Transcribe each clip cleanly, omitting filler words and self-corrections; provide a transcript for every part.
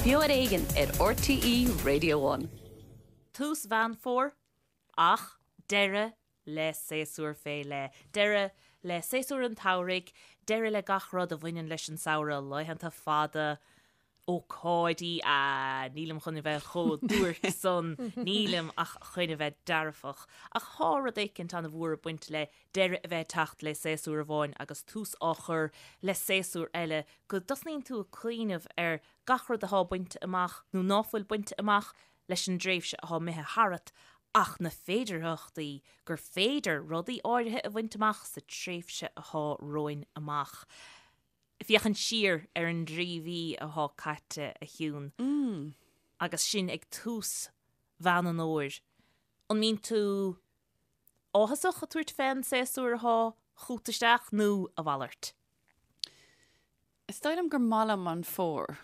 Beo ar Éigean ar RTÉ Radio One. Tús Mheán Fómhair, ach deireadh le séasúr fé leith. Deireadh le séasúr an tsamhraidh, deireadh le gach rud a bhaineann leis an samhradh, laethanta fada, ócáidí, ah, nílim chun a bheith chomh duairc san, nílim ach chun a bheith dearfach. Ach thá rud éicint an-mhór ag baint le deireadh a bheith ag teacht le séasúr amháin agus tús á chur le séasúr eile, go dtosnaíonn tú ag cuimhneamh ar gach rud athá bainte amach nó ná fuil bainte amach leis an dtréimhse athá imithe tharat ach na féidearthachtaí gur féidir rudaí áirithe a bhaint amach sa tréimhse athá romhainn amach. Féachaint siar ar an dtrí mhí athá caite, a Shiún, agus sinn ag tús Mheán an Fhómhair, an mbíonn tú áthasach ag tabhairt fén séasúr athá chugat isteach nó a mhalairt? Is dóigh liom gur maith liom an fómhar.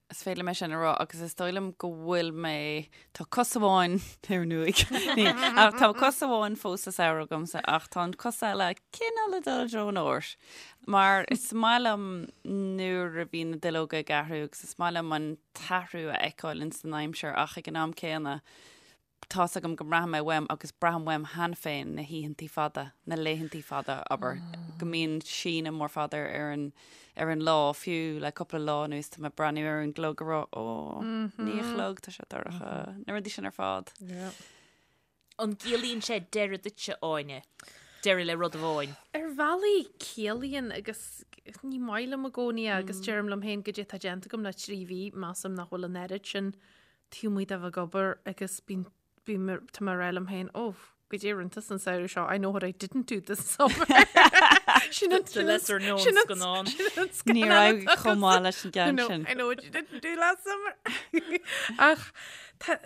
Is féidir liom é sin a rá agus is dóigh liom go bhfuil mé, tá cos amháin ar an uaigh, ach tá cos amháin fós sa samhradh agamsa ach tá an cos eile cineál ag dul i dtreo an fhómhair. Mar is maith liom nuair a bhíonn na duilleoga ag athrú agus is maith liom an t-athrú a fheiceáil ins an aimsir ach ag an am céanna tá's agam go mbraithfidh mé uaim agus braithim uaim cheana féin na hoícheantaí fada, na laethantaí fada, abair, go mbíonn síneadh mór fada ar an, ar an lá, fiú le cúpla lá anuas tá mé ag breathnú ar an gclog ag rá, ó, naoi a chlog, tá sé dorcha, na rudaí sin ar fad. An gciallaíonn sé deireadh duitse, Áine? Deireadh le rud amháin? Ar bhealaí ciallaíonn agus ní maith liom i gcónaí é agus deirim liom féin goidé atá déanta agam le 3 mhí, measaim nach bhfuil an oiread sin taobh amuigh de bheith ag obair agus bíonn, bím, tá mé ag rá liom féin, oh, goidé a rinne tusa an samhradh seo, I know what I didn't do this summer. Sin an, The lesser known sin an, scannán. sin an scannán Ní raibh atá chomh maith leis an I gceann know, sin. I know what you didn't do last summer. Ach tá,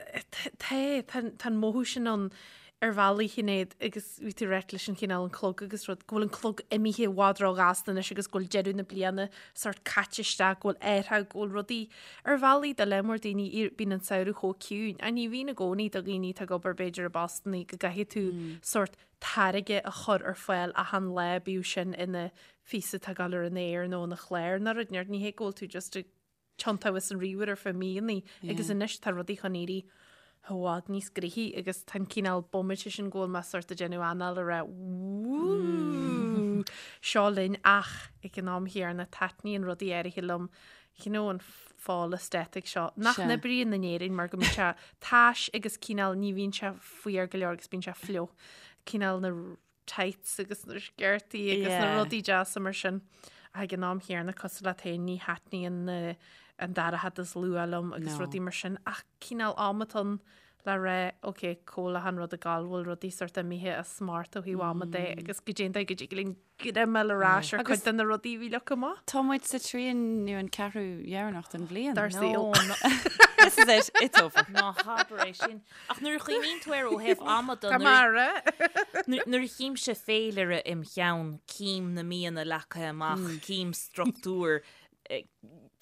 tá, tá, tá an mothú sin ann ar bhealaí Shinéad agus bhí tú ag ráit leis an chineál an clog agus rud, go bhfuil an clog imithe i bhfad ró-ghasta anois agus go bhfuil deireadh na bliana sort caite isteach, go bhfuil aertha, go bhfuil rudaí ar bhealaí do lear mór daoine, bíonn an samhradh chomh ciúin. Ach ní bhíonn i gcónaí do dhaoine atá ag obair b'fhéidir i bpostannaí go gcaithfidh tú sort táirge a chur ar fáil achan lá, bíodh sin ina phíosa atá ag dul ar an aer nó ina chlár nó rud, ní hé go bhfuil tú just ag tiontú as an ríomhaire ar feadh míonna agus anois tá rudaí chun éirí i bhfad níos gnoithí agus tá an cineál bomaite sin go bhfuil mé sort ag déanamh anáil ag rá wúúú seo linn ach ag an am chéanna taitníonn rudaí áirithe liom you know an fall aesthetic seo nach n-oibríonn in Éirinn mar go mbíonn sé tais agus cineál ní bhíonn sé fuar go leor agus bíonn sé fliuch cineál na tights agus na sciortaí agus na Yeah. rudaí deasa mar sin. Ach ag an am chéanna cosúil leat féin ní thaitníonn na- an dorchadas luath liom agus No. rudaí mar sin ach cineál am atá ann le rá ok cá bhfuil achan rud ag gabháil bhfuil rudaí sort imithe as smacht ó thaobh ama de agus goidé an dóigh go dtig linn greim a fháil ar ais ar Agus- cuid de na rudaí a bhí leagtha amach. Tá muid sa trian nó an ceathrú dheireanach den bhliain. Dár saol. This is it, it's over. Ná habair é sin. Ach nuair a chuimhníonn tú air ó thaobh ama de, Tá mara. nuair a chímse féilire im cheann, cím na míonna leagtha amach, cím struchtúr,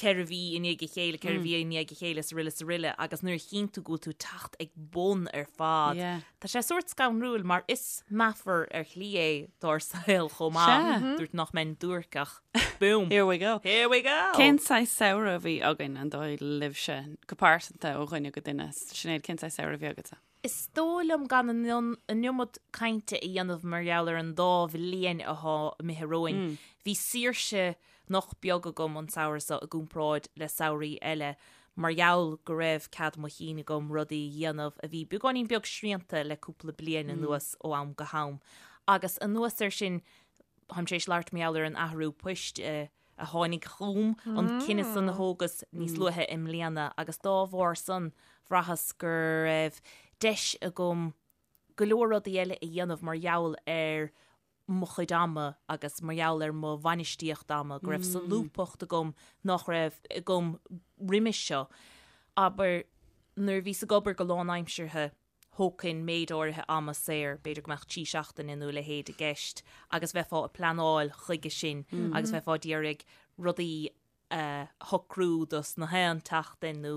4 mhí i ndiaidh a chéile, 4 mhí i ndiaidh a chéile, is aroile is aroile, agus nuair a chíonn tú go bhfuil tú ag teacht ag bun ar fad, Yeah. tá sé sórt scanrúil mar is meafar ar shlí é dár saol chomh maith. Sea. Dúirt nach mbeinn duairc ach boom! Here we go. Here we go! Cén saghas samhradh a bhí againn an dóigh libhse, go pearsanta ó dhuine go duine? Sinéad, cén saghas samhradh a bhí agatsa? Is dóigh liom gan an iomad cainte a dhéanamh mar gheall ar an dá bhliain athá imithe romhainn. Bhí saoirse nach beag agam an samhradh seo i gcomparáid le samhraí eile mar gheall go raibh cead mo chinn agam rudaí a dhéanamh a bhí beagáinín beag srianta le cúpla bliain anuas ó am go ham. Agus anuas air sin, táim tar éis labhairt mar gheall ar an athrú poist a a tháinig chugam, an cinneadh san a thógas níos luaithe i mbliana agus dá bharr san bhraitheas go raibh deis agam go leor rudaí eile a dhéanamh mar gheall ar mo chuid ama agus mar gheall ar mo bhainistíocht ama, go raibh solúbthacht agam nach raibh agam roimis seo. Abair, nuair a bhíos ag obair go lánaimseartha, thógfainn méid áirithe ama saor, b'fhéidir go mbeadh 3 seachtaine nó a leithéid i gceist, agus bheifeá ag pleanáil chuige sin agus bheifeá d'iarraidh rudaí a shocrú dos na haon tseachtain nó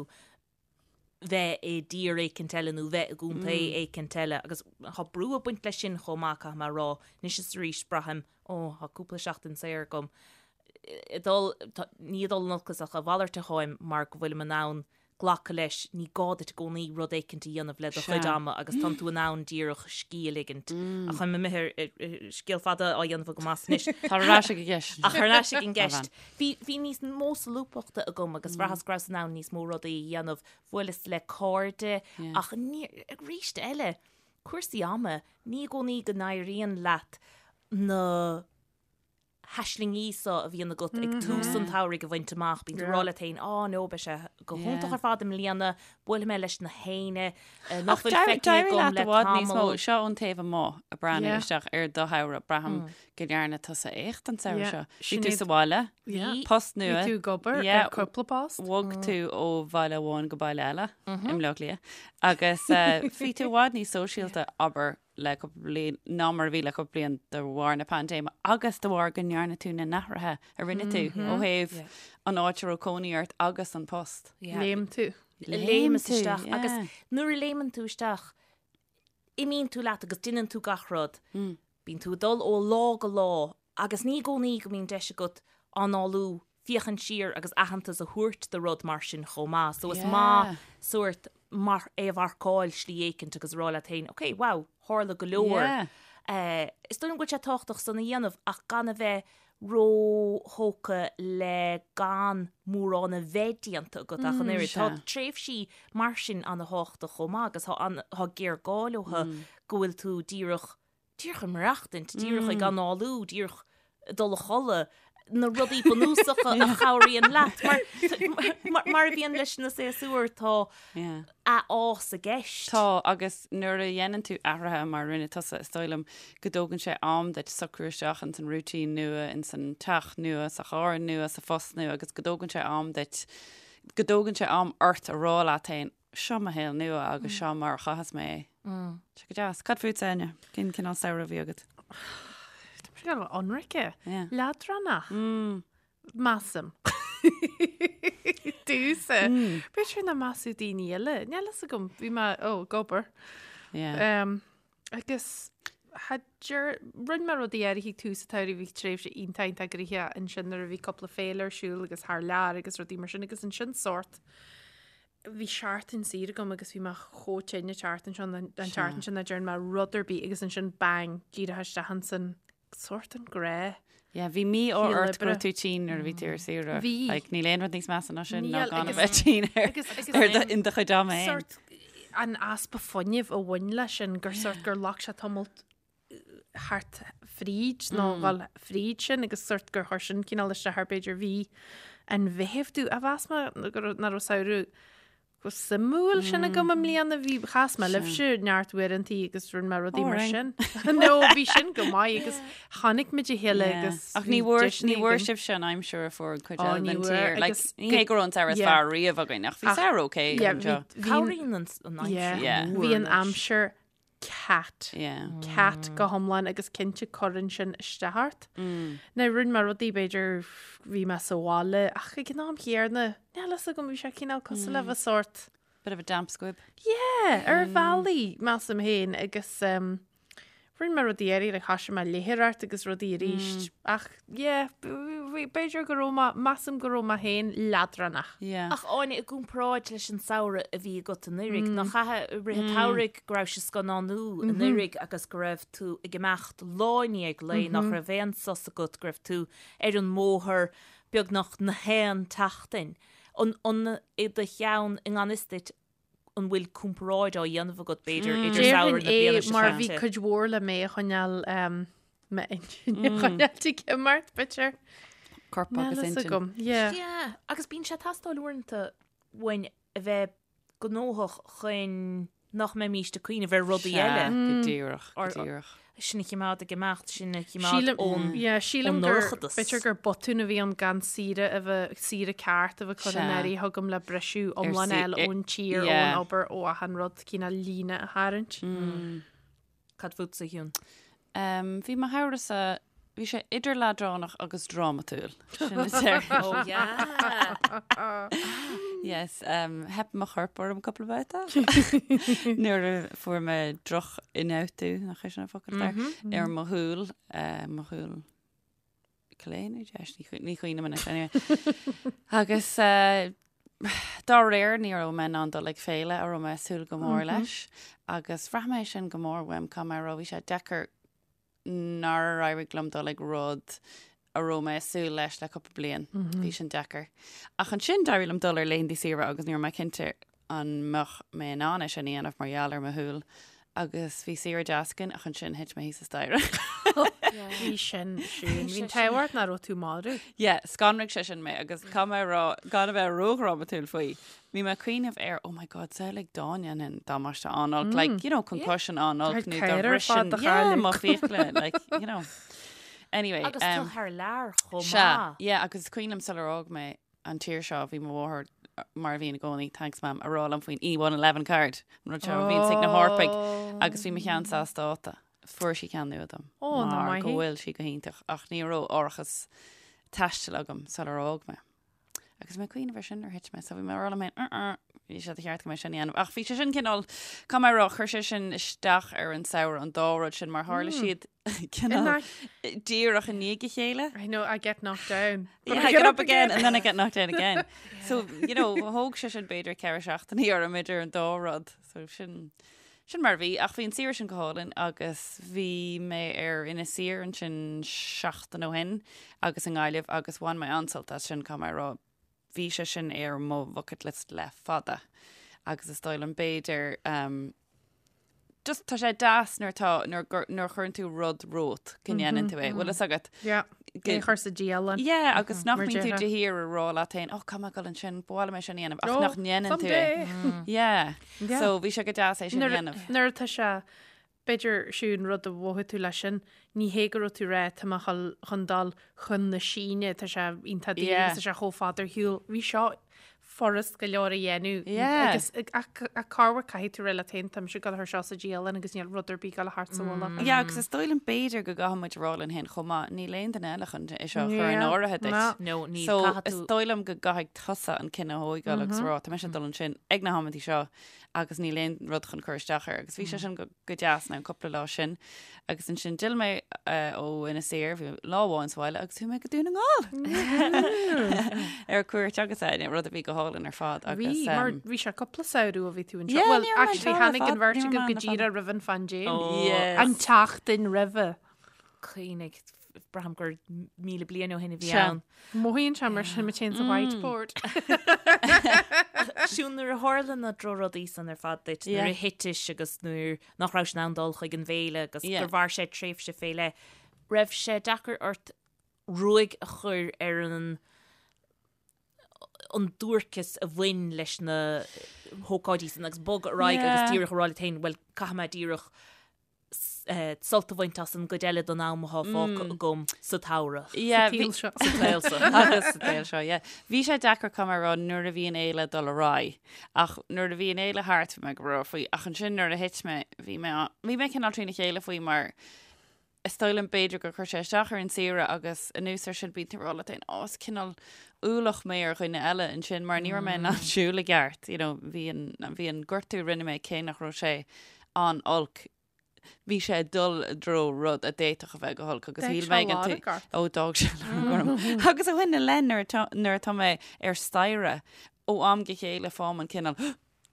bheith i dtír éicint eile nó bheith i gcontae éicint eile agus tá brú ag baint leis sin chomh maith, caithfidh mé a rá. Anois is arís braithim, ó, tá cúpla seachtain saor agam. Ag dul, ní ag dul in olcas ach a mhalairt atáim mar go bhfuilim in ann glacadh leis, ní gá duit i gcónaí rud éicint a dhéanamh le do chuid ama agus tánn tú in ann díreach scíth a ligint. Ach táim imithe ar scéal fada á dhéanamh agam as anois. Tar ar ais ag an gceist. Ach ar ais ag an gceist. Bhí, bhí níos mó solúbthachta agam agus bhraitheas go rabhas in ann níos mó rudaí a dhéanamh. Bhuaileas le cairde ach ní, arís eile, cúrsaí ama, ní i gcónaí go n-éiríonn leat na haislingí so a bhíonn agat ag tús an tsamhraidh a bhaint amach, bíonn tú ag rá leat féin, á no, beidh sé go hiontach ar fad i mbliana, buailfidh mé leis na héinne nach bhfuil feicthe agam le tamall. Seo ón taobh amuigh ag breathnú isteach ar do shamhradh, braithim go ndearna tusa éacht an samhradh seo. Bhí tú sa bhaile, post nua. Bhí tú ag obair ar cúpla post. Bhog tú ó bhaile amháin go baile eile i mBleá Cliath agus bhí tú i bhfad níos sóisialta, abair, le cúpla bliain ná mar a bhí le cúpla bliain de bharr na paindéime agus de bharr go ndearna tú na n-athruithe a rinne tú ó thaobh an áit a raibh cónaí ort agus an post. Léim tú. Léimeas isteach agus nuair a léimeann tú isteach imíonn tú leat agus déanann tú gach rud. Bíonn tú ag dul ó lá go lá agus ní i gcónaí go mbíonn deis agat análú, féachaint siar agus aitheantas a thabhairt do rud mar sin chomh maith. So is maith sórt mar é a mharcáil slí éicint agus a rá leat féin, ok, wow, tharla go leor. Is dóigh liom go bhfuil sé tábhachtach san a dhéanamh ach gan a bheith róthógtha le gan mórán a bheith déanta agat ach an oiread. Tá tréimhsí mar sin ana-thábhachtach chomh maith agus tá géarghá leo go bhfuil tú díreach díreach ag maireachtaint, díreach ag análú, díreach ag dul a chodladh, na rudaí bunúsacha a chabhraíonn leat. Mar, mar a bhíonn leis na séasúir, tá athfhás i gceist. Tá, agus nuair a dhéanann tú athruithe mar a rinne tusa, is dóigh liom go dtógann sé am duit socrú isteach ins an routine nua, ins an teach nua, sa charr nua, sa phost nua, agus go dtógann sé am duit, go dtógann sé am ort a rá leat féin, Seo mo shaol nua agus seo mar a chaitheas mé é. Tá sé go deas. Cad fútsa, Áine? Cén cineál samhradh a bhí agat? Tá sé go hionraic. Leadránach. Measaim. Domhsa. B'fhéidir nach measfadh daoine eile. Níl fhios agam. Bhí mé ó, ag obair. Agus rinne mé rudaí áirithe ag tús an tsamhraidh, bhí tréimhse iontach iontach gnoitheach ansin nuair a bhí cúpla féile ar siúl agus thar lear agus rudaí mar sin agus ansin sórt bhí seachtain saor agam agus bhí mé chomh tinn an tseachtain seo an tseachtain sin nach dtearn mé rud ar bith agus ansin bang díreach isteach ansan sórt an ghnáth. Yeah, bhí mí-ádh ort go raibh tú tinn nuair a bhí tú ar saoire. Bhí. Like, níl aon rud níos measa ná sin ná gan a bheith tinn ar ar do in do chuid ama féin. Sórt an easpa fuinnimh a bhain leis sin gur sórt gur ghlac sé tamall thart fríd nó dhul fríd sin agus sórt gur chuir sin cineál isteach ar b'fhéidir mhí an Mheithimh domh a mheas mé nach raibh samhradh chomh suimiúil sin agam i mbliana bhí chas mé libhse neart uaireantaí agus rinne mé rudaí mar sin. No bhí sin go maith agus chonaic muid a chéile agus Ach ní bhfuair ní bhfuair sibhse an aimsir a fuair an chuid eile den tír. Like, ní hé go raibh an samhradh is fearr riamh againn ach bhí samhradh okay anseo. Cabhraíonn an aimsir. Bhí an aimsir cat. Cat go hiomlán agus cinnte cuireann sin isteach ort. Now rinne mé rudaí b'fhéidir bhí mé sa bhaile ach ag an am chéanna níl fhios agam bhí sé cineál cosúil le bheith sórt. Bit of a damp squib. Yeah, ar bhealaí measaim féin agus um, rinne mé rudaí eile like thosaigh mé léitheoireacht agus rudaí arís ach yeah, b'fhéidir go raibh mé, measaim go raibh mé féin leadránach. Yeah. Ach Áine, i gcomparáid leis an samhradh a bhí agat anuraidh, nach ea i rith an tsamhraidh go raibh sé scannánú anuraidh agus go raibh tú ag imeacht lá i ndiaidh lae, nach raibh aon sos agat, go raibh tú ar an mbóthar beagnach na haon tseachtain. An, an i do cheann i ngan fhios duit, an bhfuil comparáid á dhéanamh agat, b'fhéidir, idir samhradh na bliana seo caite? Déarfainn é mar bhí cuid mhór le mé a choinneáil, m'intinn a choinneáil ag imeacht, b'fhéidir. Corp agus intinn. Agam, yeah. Yeah, agus bíonn sé ag teastáil uaireanta uainn a bheith gnóthach chun nach mbeimíst ag cuimhneamh ar rudaí eile. Sea, go díreach, go díreach. Sinn a choimeád ag imeacht, sinn a choimeád ón yeah, sílim gur ndorchadas. b'fhéidir gur botún a bhí ann gan saoire a bheith, saoire ceart a bheith curtha in áirithe agam le briseadh iomlán a fháil ón tír, ón obair, ó achan rud, cineál líne a tharraingt. Cad fútsa, a Shiún? Bhí mo shamhradh-sa, bhí sé idir leadránach agus drámatúil. Sin a deir. Oh yeah! Yes, um, theip mo chorp orm cúpla babhta. Nuair a fuair mé droch-ionfhabhtú, nach é sin an focal ar, ar mo shúil, uh, mo shúil. Clé nó deis, ní chuimhním anois anyway. Agus dá réir ní raibh mé in ann dul ag féile a raibh mé ag súil go mór leis agus bhraith mé sin go mór uaim caithfidh mé a rá bhí sé deacair nár éirigh liom dul ag rud a raibh mé ag súil leis le cúpla bliain. Bhí sin deacair. Ach ansin d'éirigh liom dul ar laethanta saoire agus ní raibh mé cinnte an mbeadh mé in ann é sin a dhéanamh mar gheall ar mo shúil agus bhí saoire deas againn ach ansin thit mé thíos an staighre. Bhí sin sin. Bhí an t-ádh ort nach raibh tú marbh. Yeah, scanraigh sé sin mé agus caithfidh mé a rá gan a bheith ródhrámatúil faoi. Bhí mé ag cuimhneamh ar, oh my god, samhlaigh dá ndéanfainn damáiste an-olc, like, you know, concussion an-olc nó dá mbrisfinn, yeah, mo fiacla, like, you know. Anyway. Agus tú thar lear chomh maith. Sea, yeah, agus is cuimhin liom sular fhág mé an tír seo, bhí mo mháthair, mar a bhíonn i gcónaí, thanks mam, a rá liom faoin E111 card, an rud seo a bhíonns ag na hEorpaigh, agus bhí mo cheannsa as dáta. Fuair sí ceann nua dom. Ó, nach Mar maith go í. bhfuil sí go hiontach, ach ní raibh árachas taistil agam sular fhág mé. Agus mé ag cuimhneamh ar sin nuair a thit mé, so bhí mé ag rá liom féin, uh-uh, bhí sé de cheart go mbeidh sin a dhéanamh. Ach bhí sé sin cineál, caithfidh mé a rá, chuir sé sin isteach ar an samhradh, an dá rud sin, mar tharla siad cineál díreach i ndiaidh a chéile. I know, I get knocked down. But Yeah, I get up again and then I get knocked down again. So, you know, thóg sé sin b'fhéidir 4 seachtainí orm idir an dá rud. So sin, sin mar a bhí. Ach bhí an saoire sin go hálainn agus bhí mé ar Inis Oírr ansin seachtain ó shin agus i nGaillimh agus bhain mé an-sult as sin, caithfidh mé a rá. Bhí sé sin ar mo bucket list le fada agus is dóigh liom b'fhéidir um, just tá sé deas nuair atá nuair gur- nuair a chuireann tú rud romhat go ndéanann tú é. Bhfuil fhios agat? Yeah. Go- É chur sa dialann. Yeah, agus nach Mar mbíonn tú déarfá. de shíor ag rá leat féin, oh, caithfidh mé dul ansin, ba mhaith liom é sin a dhéanamh, ach Oh, nach ndéanann tú é. someday. Yeah. Yeah. So bhí sé go deas é sin a Nuair dhéanamh. nuair atá sé, b'fhéidir siún rud a mhothaigh tú leis sin, ní hé go raibh tú ag rá tá mé chun chun dul chun na Síne, tá sé iontach daor Yeah. agus tá sé chomh fada ar shiúl. Bhí seo furast go leor a dhéanamh Yeah. agus ach ach corruair caithfidh tú rá leat féin tá mise ag dul thar seo sa dialann agus níl rud ar bith ag dul thart sa mhullach. Yeah, agus is dóigh liom b'fhéidir go gcaithfidh muid a rá linn féin chomh maith, níl aon duine eile chun é seo a chur in Yeah. áirithe duit. No. No, níl, So caithfidh is tú- dóigh liom go gcaithfidh tusa an cinneadh a thógáil agus rá, tá mise ag dul ansin ag na hamantaí seo agus níl aon rud chun cur isteach air. Agus bhí sé sin go go deas na cúpla lá sin. Agus ansin d'fhill mé ó Inis Oírr, bhí lá amháin sa bhaile agus chuaigh mé go Dún na nGall ar cuairt agus é, rud a bhí go hálainn ar fad. Bhí, Agus, mar um, bhí sé cúpla samhradh ó bhí tú anseo. Yeah, Well, ní raibh mé actually, anseo le tháinig an fada, bheirt ní raibh agaibh mé go ann le fada. díreach roimh an phaindéim. Oh. Yes. An tseachtain roimhe. Cuimhnigh, braithim gur 1,000 bliain ó shin a bhí Sea. ann. Mothaíonn sé mar sin, mé féin sa whiteboard. Siún nuair a tharla na drochrudaí san ar fad duit, nuair a thitis agus nuair nach raibh in ann dul chuig an bhféile agus gur mhair sé tréimhse fé leith, raibh sé deacair ort ruaig a chur ar an an duairceas a bhain leis na hócáidí san agus bogadh ar aghaidh agus díreach a rá leat féin, bhuel, caithfidh mé díreach sult a bhaint as an gcuid eile den am atá fágtha agam sa tsamhradh. Yeah, Sa tsaol seo. Sa tsaol seo. Agus sa tsaol seo, yeah. Bhí sé deacair caithfidh mé a rá nuair a bhí an fhéile ag dul ar aghaidh. Ach nuair a bhí an fhéile thart bhí mé go breá faoi. Ach ansin nuair a thit mé, bhí mé, bhí mé cineál trína chéile faoi mar is dóigh liom b'fhéidir gur chuir sé isteach ar an saoire agus anuas ar sin bíonn tú ag rá leat féin, ó is cineál ualach mé ar dhuine eile ansin mar ní raibh mé in ann siúl i gceart, you know, bhí an, bhí an gortú a rinne mé cé nach raibh sé an-olc. Bhí sé ag dul i dtreo rud a d'fhéadfadh a bheith go holc agus D'fhág shíl sé mé ag an lorg ort. Ó d'fhág sé lorg orm. Agus ó shin i leith nuair atá nuair atá mé ar staighre ó am go chéile faighim an cineál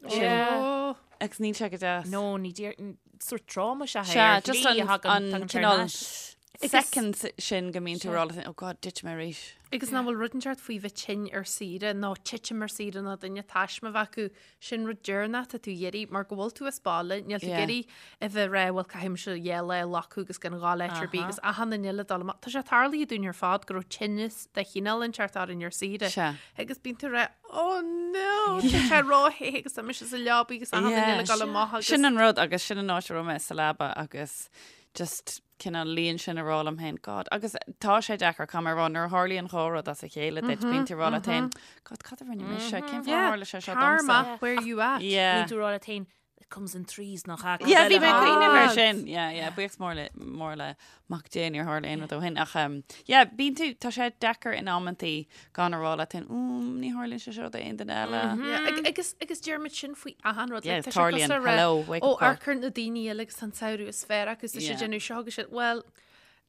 sin Ó, agus níl sé go deas. No, ní déar sórt tráma is ea é Sea, ar just shlí an, a thagann an tagann sé ar cineál ais. second sin go mbíonn tú ag rá leat féin, oh God, thit mé arís. Agus nach bhfuil rud inteacht faoi bheith tinn ar saoire nó titim ar saoire nó duine taisme a bheith acu, sin rud deireanach atá tú ag iarraidh mar go bhfuil tú as baile, níl tú ag Yeah. iarraidh a bheith ag rá bhuel caithfidh mise dhá lá a ghlacadh agus gan dhul áit ar bith agus achan duine eile dul amach. Tá sé tarlaithe dúinn ar fad go raibh tinneas de chineál inteacht orainn ar saoire. Sea. Agus bíonn tú ag rá oh no, tá sé róthe agus tá mise sa leabaidh agus achan duine eile ag dul amach agus Sin an rud agus sin an áit a raibh mé sa leaba agus just cineál luí ansin ag rá liom féin, God, agus tá sé deacair caithfidh mé a rá, nuair a tharlaíonn dhá rud as a chéile duit, bíonn tú ag rá leat féin, God, cad a rinne mise? Cén fáth ar tharla sé seo domsa? Karma, where you at? Yeah. Bíonn tú ag rá leat féin, it comes in threes nach ea? Yeah, bhí mé ag cuimhneamh ar Ah. sin. Yeah, yeah, buíochas mór le, mór le Mac Dé níor tharla aon rud ó shin. Ach, um, yeah, bíonn tú, tá sé deacair in amantaí gan a rá leat féin, mm, ní tharlaíonn sé seo d'aon duine eile. Yeah, ag- agus agus deirimid sin faoi achan rud. Yeah, Like, tá sé tarlaíonn. cosúil le rá, Hello, wake Ó up call. amharc ar na daoine eile agus an samhradh is fearr acu is Yeah. déanamh seo agus siad, well,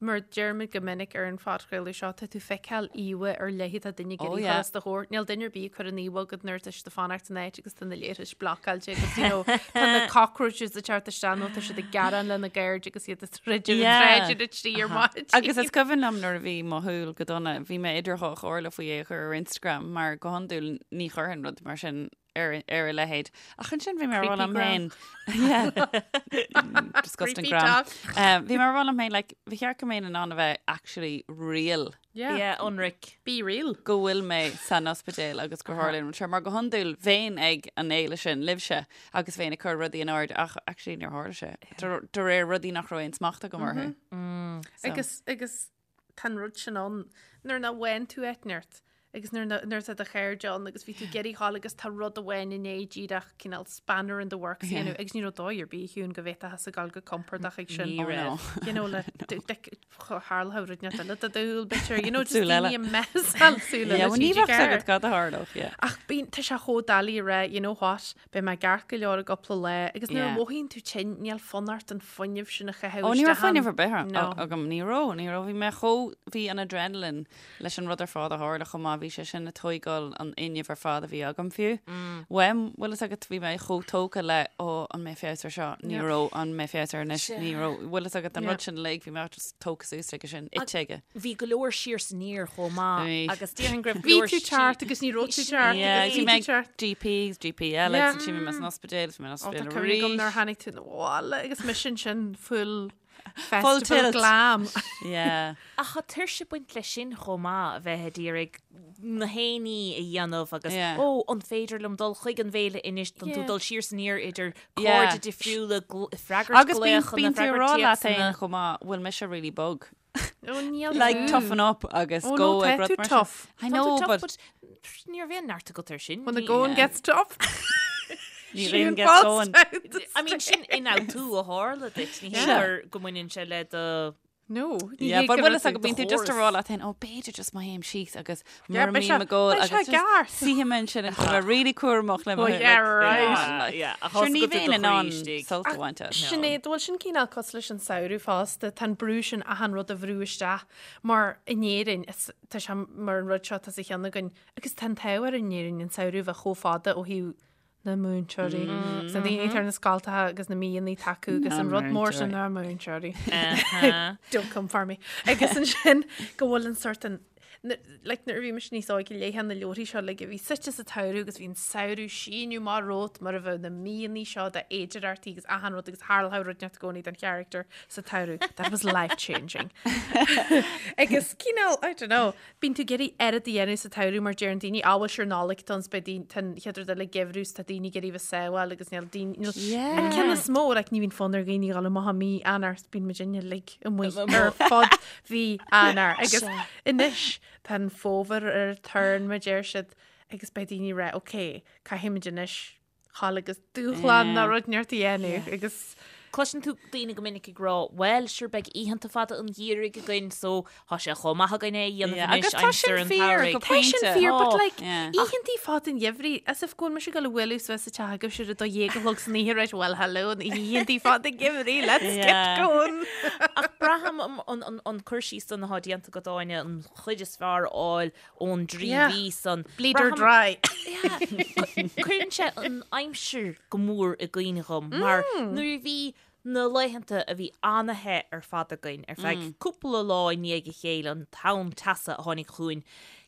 Mar deirimid go minic ar an phodchraoladh seo, tá tú ag feiceáil íomhá ar leith atá duine ag Oh, iarraidh yeah. chur os do chomhair. Níl duine ar bith ag cur an íomhá agat nuair atá siad ag fanacht san áit agus tá na leithris blocáilte agus you know, tá na cockroaches ag teacht isteach nó tá siad ag gearán lena gcairde agus iad ag troid ar an Yeah. tsráid ar a trí ar maidin. Agus is cuimhin liom nuair a bhí mo shúil go dona, bhí mé idir dhá chomhairle faoi é a chur ar Instagram mar go hiondúil ní chuirfinn rud mar sin ar ar a leithéid. Ach ansin bhí mé ag rá liom féin. Yeah. Disgusting Creepy gram. talk. Um, bhí mé ag rá liom féin, like, ba cheart go mbeinn in ann a bheith actually real Yeah. Yeah, ionraic. Be real. go bhfuil mé san ospidéal agus gur tharla an rud seo mar go hiondúil bheinn ag an fhéile sin libhse agus bheinn ag cur rudaí in airde ach actually níor tharla sé. De de réir rudaí nach raibh aon smacht agam orthu. So. Agus agus tá an rud sin ann nuair nach bhfaigheann tú eitneart agus nuair na- nuair atá do chairde ann agus bhí tú ag iarraidh ghabháil agus tá rud amháin i ndiaidh díreach cineál spanner in the works a dhéanamh agus ní raibh dóigh ar bith Shiún go bhféadfá a ghabháil go compordach ag sin. Ní Oh, raibh. no. You know, le tharla rud inteacht eile do do shúil b'fhéidir, you know, just Súil eile. daoine a mheas súil Yeah, eile well, ní TG bheadh Ceathair. agat cad a tharlódh, yeah. Ach bíonn, tá sé chomh doiligh a rá, you know what, beidh mé ceart go leor i gcúpla lá, agus nuair a Yeah. mhothaíonn tú tinn, níl fonn ort an fuinneamh sin a chaitheamh Ó, ní raibh isteach fuinneamh ann. ar bith No. agam, ní raibh, ní raibh, bhí mé chomh, bhí an adrenaline leis an rud ar fad a tharla chomh maith, bhí sé sin ag tóigáil an fhuinnimh ar fad a bhí agam fiú. Uaim, bhfuil fhios agat, bhí mé chomh tógtha le, ó, an mbeidh feabhas air seo, ní Yeah. raibh, an mbeidh feabhas air anois, ní raibh, bhfuil fhios agat an Yeah. rud sin uilig, bhí mé just tógtha suas aige sin, ite aige. Bhí go leor siar is aniar chomh maith Bhí. agus déarfainn go raibh go Bhí leor tú ceart agus ní raibh tú ceart Yeah, agus bhí bhí mé tú ceart. GP, GP eile, Yeah. agus ansin bhí mé san ospidéal, bhí mé san Ó, tá ospidéal cuimhne agam nuair arís. tháinig tú 'na bhaile agus mise ansin full Full festival tilt. glam. Yeah. Ach tá tuirse ag baint leis sin chomh maith, a bheith ag iarraidh na haon ní a dhéanamh agus Yeah. ó, an féidir liom dul chuig an bhféile anois, tá tú Yeah. dul siar is aniar idir Yeah. cairde difriúla, gl- freagairt Agus bíonn glaochanna, bíonn tú ag freagairt rá leat féin téacsanna. chomh maith, bhfuil mise really bog. Ó, níl Like tú. toughen up agus Ó, go no, ag tá rud tú mar sin. tough. I Tá tú know, tough, but but ní raibh aon neart agat air sin. When the Ní- going Yeah. gets tough. ní Siún raon gets falls going. down the I mean, sin ionfhabhtú a tharla duit, ní hé Yeah. gur go mbaineann sé le do No, ní Yeah, hé but go bhfuil raibh fhios agat tú bíonn tú just ag chóras. rá leat féin, ó b'fhéidir just má théim síos agus Yeah, mura beidh sé- mbím ag gol beidh sé agus just ceart. suífidh mé ansin agus bheith really cúramach le mo Oh, like, yeah, right. come on, like, Yeah, ach Sure, thosaigh ní go dtí bheinn do in ann chroí istigh. sult a bhaint as. Sinéad, bhfuil sin cineál cosúil leis an samhradh fosta, tá an brú sin achan rud a bhrú isteach mar in Éirinn, is, tá sé mar an rud seo tá sa cheann againn, agus tá an t-ádh orainn in Éirinn an samhradh bheith chomh fada ó thaobh na múinteoirí, agus na daoine atá ar na scoltacha agus na míonna atá acu agus an rud mór sin na múinteoirí. Don't come for me. Agus ansin go bhfuil an sort an like nuair a bhí mise níos óige léifeá na leabharthaí seo like a bhí suite sa tsamhradh agus bhí an samhradh síneadh amach romhat mar a bheadh na míonna seo d'fhéidearthachtaí agus achan rud agus tharlódh rud inteacht i gcónaí don charachtar sa tsamhradh. That was life changing. Agus cineál, I don't know, Bíonn tú ag iarraidh oiread a dhéanamh sa tsamhradh mar deireann daoine, á bhuel sure Nollaig atá ann 's beidh daoine, tá an chéad rud eile geimhreadh 's tá daoine ag iarraidh bheith sábháil agus níl daoine, níl, Yeah. an ceann is mó, like ní bhíonn fonn ar dhaoine dhul amach i mí Eanáir 's bíonn muid uilig amuigh ar fud mhí Eanáir agus anois tá an fómhar ar turn mar deir siad agus beidh daoine ag rá, ok, caithfimid anois dhul agus dúshlán nó rud inteacht a dhéanamh agus Cloiseann tú daoine go minic ag rá, bhuel, sure beidh oícheanta fada an gheimhridh againn so tá sé chomh maith againn é a dhéanamh Yeah, anois agus tá aimsir sin an fíor tsamhraidh. go Tá sin pointe. fíor, but Tá. like, Yeah. oícheantaí fada an gheimhridh, as if go bhfuil mise ag dul a bhualadh suas sa teach agaibh sure 12 a chlog san oíche, right, well hello, an oícheantaí fada gheimhridh, let's get Yeah. going. Ach braithim an- an- an- an cur síos san atá déanta agat Áine, an chuid is fearr a fháil ón dtrí Yeah. mhí san. Bleed her Braithim- dry. Cuireann sé an aimsir go mór i gcuimhne dhom mar nuair a bhí na laethanta a bhí an-the ar fad againn ar feadh cúpla lá i ndiaidh a chéile, an tonn teasa a tháinig chugainn,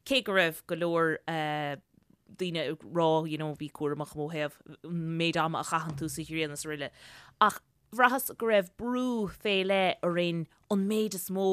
cé go raibh go leor daoine ag rá you know bí cúramach ó thaobh an méid ama a chaitheann tú sa ghrian is araile. Ach Bhraitheas go raibh brú fé leith orainn an méid is mó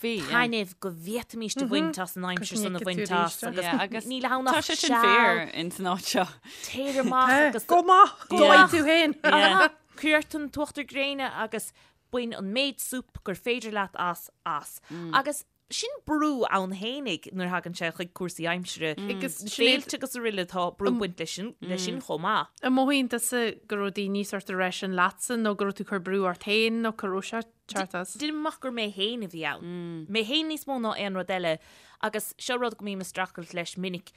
bhí, yeah. taitnimh go bhféadfaimíst a bhaint as an aimsir san a bhaint as Yeah, agus agus níl ann tá ach sé sin seal fíor in san áit seo. téir amach agus Go maith, Go dóigh maith. tú féin. Yeah. Cuir ort an t-uachtar gréine agus bain an méid súp gur féidir leat as as. Agus Sin brú ann fhéinig nuair a thagann sé chuig cúrsaí aimsire. Agus Sinéad, Féilte agus araile tá brú ag baint leis sin leis sin chomh maith. An mothaíonn tusa go raibh daoine sort ag rá sin leatsa nó go raibh tú ag cur brú ort féin nó cá raibh sé teacht as? Deinim amach gur mé féin a bhí ann. Mé féin níos mó ná aon rud eile agus seo rud go mbím ag streachailt leis minic.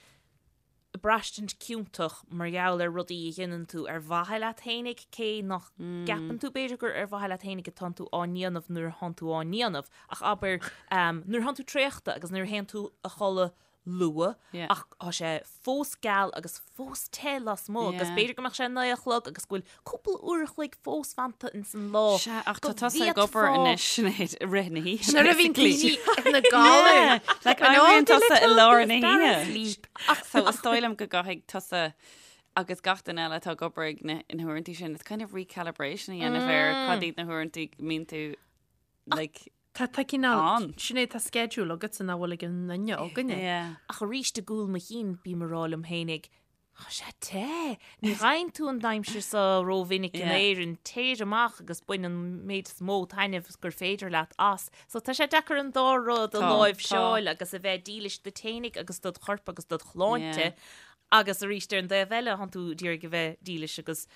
braistint ciontach mar gheall ar rudaí a dhéanann tú ar mhaithe leat fhéinig, cé nach gceapann tú b'fhéidir gur ar mhaithe leat fhéinig atánn tú á ndéanamh nuair atánn tú á ndéanamh, ach abair nuair atánn tú traochta agus nuair a théann tú a chodladh luath ach tá sé fós geal agus fós te lasmuigh agus b'fhéidir go mbeadh sé 9 a chlog agus go bhfuil cúpla uair a chloig fós fanta ins an lá. Sea, ach tá tusa ag obair anois, Sinéad, i rith na hoíche. Nuair a bhíonn daoine ina gcodladh. Like, éiríonn tusa i lár na hoíche. Ach so is dóigh liom go gcaithfidh tusa agus gach duine eile atá ag obair ag na huaireanta sin, it's kind of recalibration a dhéanamh ar cad iad na huaireanta go mbíonn tú like Tá tá cineál, Sinéad, tá schedule agatsa nach bhfuil ag aon duine againne. Yeah. Ach arís i gcúl mo chinn bím ag rá liom fhéinig, Tá sé te! Ní fhaigheann tú an aimsir seo rómhinic in Éirinn. Téir amach agus bain an méid is mó taitneamh gur féidir leat as. So tá sé deacair an dá rud a láimhseáil agus a bheith dílis duit fhéinig agus dod chorp agus dod shláinte agus arís ar an dtaobh eile tánn tú d'iarraidh a bheith dílis agus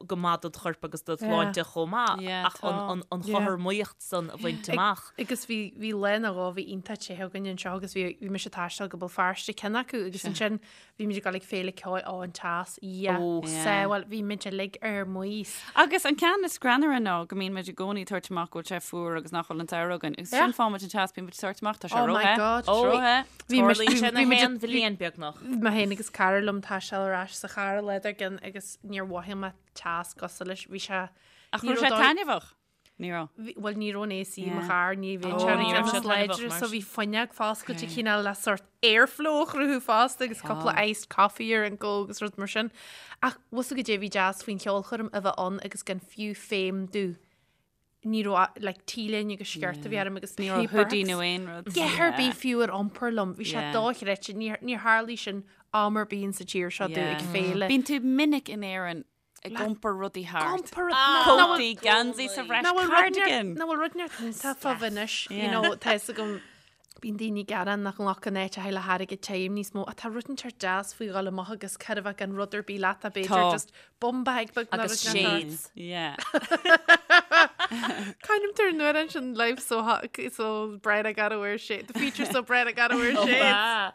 go maith dod chorp agus dod shláinte chomh maith ach an chothromaíocht san a bhaint amach. Agus bhí bhí lá nó dhó bhí iontach te againn anseo agus bhí bhí mise ag taisteal go Béal Feirste ceann acu agus ansin bhí muid ag dul ag féile ceoil ó an teas yeah sábháil bhí muid uilig ar maos. Agus an ceann is greannmhaire ná go mbíonn muid i gcónaí ag tabhairt amach go bhfuil sé fuar agus nach bhfuil an samhradh againn. Agus ansin faigheann muid an teas bíonn muid ag tabhairt amach tá sé Oh my róthe. God. Tá sé róthe. Bhí muid- Tarlaíonn sé bhí na muid- haon bhliain beagnach. Mé féin agus cara liom ag taisteal ar ais sa charr an lá dár gcionn agus níor mhothaigh mé teas cosúil leis. Bhí sé Ach ní raibh sé raibh dóigh- taitneamhach? Ní raibh. Bhí- Bhuel ní raibh an AC i mo Yeah. charr, ní bhí Oh, sé ní raibh sé níos láidre, taitneamhach mar so sin. bhí fuinneog foscailte cineál le sort airflow a chruthú fosta agus cúpla iced coffee ar an go agus rud mar sin. Ach bhfuil fhios agat goidé a bhí deas faoin cheolchoirm a bheith ann agus gan fiú feidhm domh. Ní raibh like T-léine agus sciort a bhí orm agus Ní raibh hoodie nó aon rud. Dhath ar bith fiú ar iompar liom. Bhí sé dochreidte. Níor níor tharlaigh sin am ar bith sa tír seo domh ag féile. Bíonn tú minic in Éirinn ag iompar rudaí thart. Iompar Cótaí, geansaí sa bhreis, cardigan. Nach bhfuil rud neart iontach fá anois, you know, tá fhios agam bíonn daoine ag gearán nach nglacann áiteacha le hairgead tirim níos mó ach tá rud inteacht deas faoi dhul amach agus cad a bheith gan rud ar bith leat a b'fhéidir Tá. just bum bag beag nó Agus rud inteacht. shades. Yeah. Kind of turn nuair sin life so hot, so bright I gotta wear shades. The future's so bright I gotta wear shades.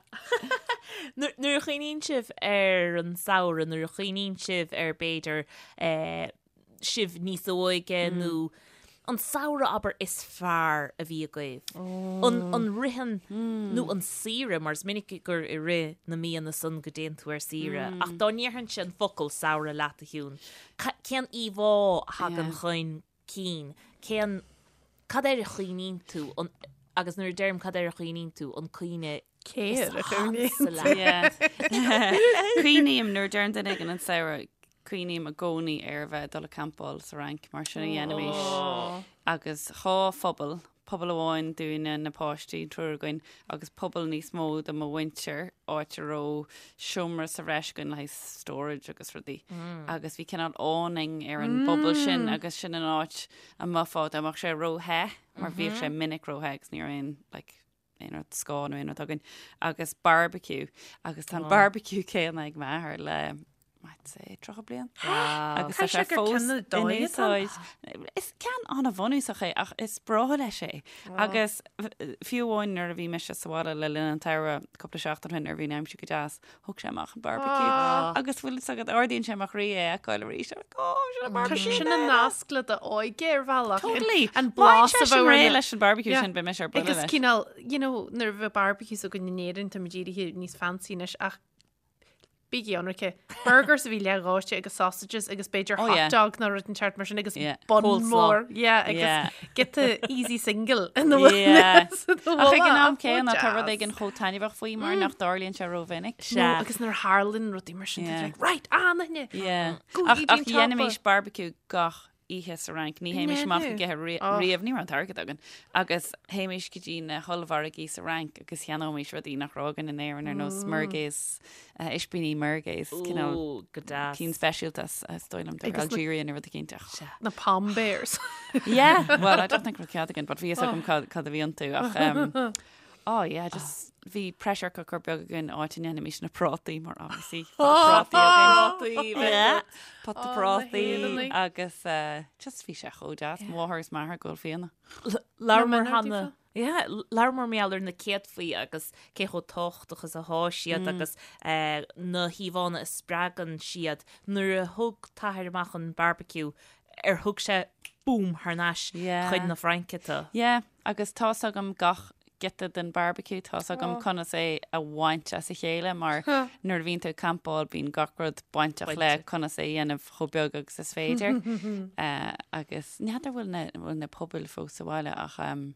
Nuair nuair a chuimhníonn sibh ar an samhradh, nuair a chuimhníonn sibh ar b'fhéidir eh, sibh níos óige nó an samhradh abair is fearr a bhí agaibh. An an ritheann nó an saoire mar is minic gur i rith na míonna san go dtéann tú ar saoire ach dá ndéarfainnse an focal samhradh leat a Shiún, cén íomhá a thagann chun cinn? Cén cad air a chuimhníonn tú an agus nuair a deirim cad air a chuimhníonn tú an cuimhne Cé is air a chuimhníonn ansa leat? Yeah. Cuimhním nuair a deireann duine éigin an samhradh Cuimhním i gcónaí ar a bheith ag dul ag campáil sa Fhrainc, mar sin a dhéanaimis. Agus dhá phuball, puball amháin dúinne, na páistí, an triúr againn, agus puball níos mó do mo mhuintir, áit a raibh seomra sa bhreis againn le haghaidh storage agus rudaí. Agus bhí cineál awning ar an bpuball sin agus sin an áit a mbeifeá dá mbeadh sé ró-the, mar bhíodh sé minic ró-the agus ní raibh aon, like, aon rud scáth nó aon rud againn agus barbecue agus tá an barbecue céanna ag m'athair le I'd say 30 bliain agus tá sé fós in úsáid. Is ceann an-bhunúsach é ach is breá leis é agus fiú amháin nuair a bhí mise sa bhaile le linn an tsamhraidh cúpla seachtain ó shin nuair a bhí an aimsir go deas Thóg sé amach an barbecue agus bhfuil fhios agat ardaíonn sé mo chroí é a fheiceáil arís. I'm like, oh, sin an Tá barbecue. sin an nasc le d'óige ar bhealach. Totally. An blas a Má bheith réidh leis an barbecue sin beidh mise ar buile Agus leis. cineál, you know, nuair a bheadh barbecues againn in Éirinn, tá muid éirithe níos fancy anois ach bígí ionraice. Burgers a bhí leathdhóite agus sausages agus b'fhéidir Oh, hot yeah. dog nó rud inteacht mar sin agus Yeah. bun Coleslaw. mór. Yeah, agus Yeah. get the easy single in the Yeah. Ach Ach ag an am céanna tá rud éigin chomh taitneamhach faoi mar nach dtarlaíonn sé rómhinic. Sea. No, agus nuair a tharlaíonn rudaí mar sin, Yeah. like, right, ah, na Yeah. Go Ach dtí ach an dhéanaimis tapa. barbecue gach oíche sa Fhrainc. Ní théimis amach ag ithe riamh, ní raibh an t-airgead againn. Agus théimis go dtí na hollmhargaí sa Fhrainc agus cheannóimis rudaí nach raibh againn in Éirinn ar nós merguez, ispíní merguez, cineál Ó, go deas. cinn speisialta is dóigh liom de Agus na- Algeria nó rud eicínt ach. Na Pom Bears. Yeah, well, I don't think raibh cead againn, but bhí fhios agam cad cad a bhí iontu ach um, oh yeah, just bhí pressure cooker beag againn áit a ndéanaimis na prátaí mar obviously prátaí againn. Yeah, pota Oh, na prátaí hÉireannaigh. agus uh, just bhí sé chomh deas, máthair is m'athair ag ól fíona. Labhramar Na cheana. Yeah, labhramar mar gheall ar na céadfaí agus cé chomh tábhachtach is atá siad agus na híomhánna a spreagann siad. Nuair a thug t'athair amach an barbecue, ar thug sé boom thar n-ais chuig na Fraince tú? Yeah, agus tá's agam gach giota den barbecue, tá's agam conas é a bhaint as a chéile mar nuair a bhíonn tú ag campáil bíonn gach rud bainteach le conas é a dhéanamh chomh beag agus is féidir. Agus n'fheadar bhfuil na, bhfuil na pubaill fós sa bhaile ach um,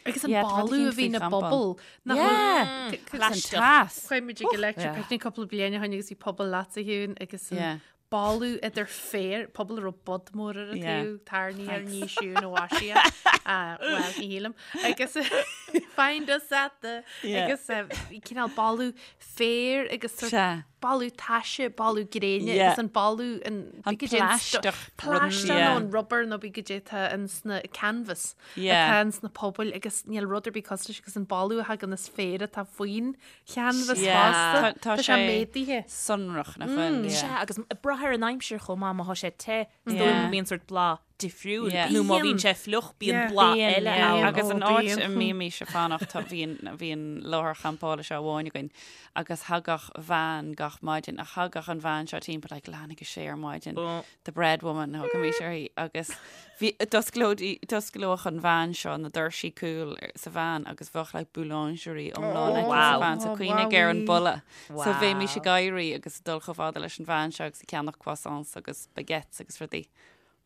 Agus an Yeah, tá boladh a rud bhí éicint na faoi champáil. bpuball. Nach Yeah. bhfuil- Agus an teas. Chuaigh muid ag Electric Picnic cúpla bliain ó shin agus bhí puball leat a Shiún agus an Yeah. boladh idir féar, puball a raibh bod mór ar an Yeah. taobh, tairní ar ní Siún ó Asia. Ah, Well, ní shílim. Agus find us at the Yeah. agus eh, bhí cineál boladh féir agus sort Sea. boladh taise, boladh gréine Yeah. agus an boladh an An bí goidé an stu- plaisteach rud, plaisteach yeah. nó an rubber nó bí goidé atá in sna canvas Yeah. atá in sna pubaill agus níl rud ar bith cosúil leis agus an boladh a thagann as féar atá faoin chanvas Yeah. fosta. Tá- tá Tá sé sé méadaithe. Sonrach nach bhfuil. Sea, Yeah. agus ag brath ar an aimsir chomh maith, má tá sé te, is dóigh Yeah. go mbíonn sort blas difriúil. Yeah. Nó má bhíonn Bíonn. sé fliuch, bíonn Yeah. blas Bíonn, eile yeah. ann. Agus an Oh, áit bíonn. a mbímís ag fanacht tá- bhí an bhí an láthair champála seo amháin againn agus thagadh veain gach maidin ach thagadh an veain seo timpeall like leath i ndiaidh a sé ar maidin. Oh. The bread woman a thugaimis uirthi agus bhí d'osclódí d'osclódh an veain seo na doirsí cúil sa veain agus bheadh like boulangerie iomlán aici sa Wow. veain so Oh, cuimhnigh ar an wowie. boladh. So bheimis Wow. ag éirí agus ag dul chomh fada leis an veain seo agus ag ceannach croissants agus baguettes agus rudaí.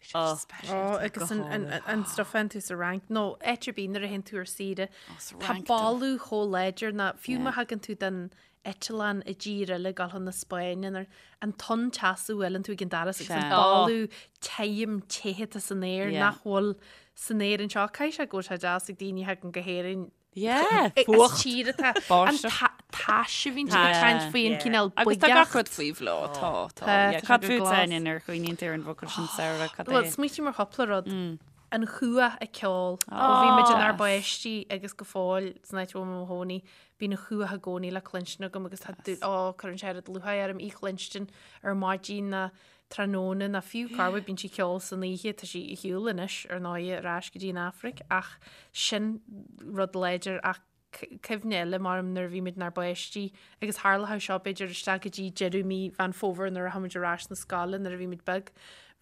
Bhí sé Oh. speisialta. Ó, agus an, an, an, an stuff an tú sa Fhrainc, nó áit ar bith nuair a théann tú ar saoire, sa tá Fhrainc dó. boladh chomh láidir ná fiú má thagann tú den eitleán i dtír eile ag dul chun na Spáinne nuair an tonn teasa a bhuaileann tú ag an doras agus an Sea. boladh tirim te atá san aer Yeah. nach bhfuil san aer anseo. Caithfidh sé go bhfuil sé deas ag daoine a thagann go hÉirinn Yeah, As fuacht. tír atá an Báisteach. ta- tais a bhíonn siad ag caint faoi an Yeah. cineál Agus tá gach buigeacht. rud faoi bhláth, tá, tá. Tá, Yeah, tá sé Cad go fút glas. Áine nuair a chuimhníonn tú ar an bhfocal sin samhradh, cad Well, é? smaoiním ar chúpla rud. An chuach ag ceol. Ó bhí muid inár bpáistí agus go fóill san áit a bhfuil mé i mo chónaí, bíonn an chuach i gcónaí le cluinstin agam agus tá dúil, ó, cuireann sé oiread lúcháir orm í chluinstin ar maidin ná tráthnóna ná fiú corruair bíonn sí ag ceol san oíche, tá sí ar shiúl anois ar ndóigh ar ais go dtí an Afraic ach sin rud láidir ach cuimhne eile mar nuair a bhí muid inár bpáistí agus tharlódh seo b'fhéidir isteach go dtí deireadh mí Mheán Fómhair nuair a rachadh muid ar ais na scoile nuair a bhí muid beag.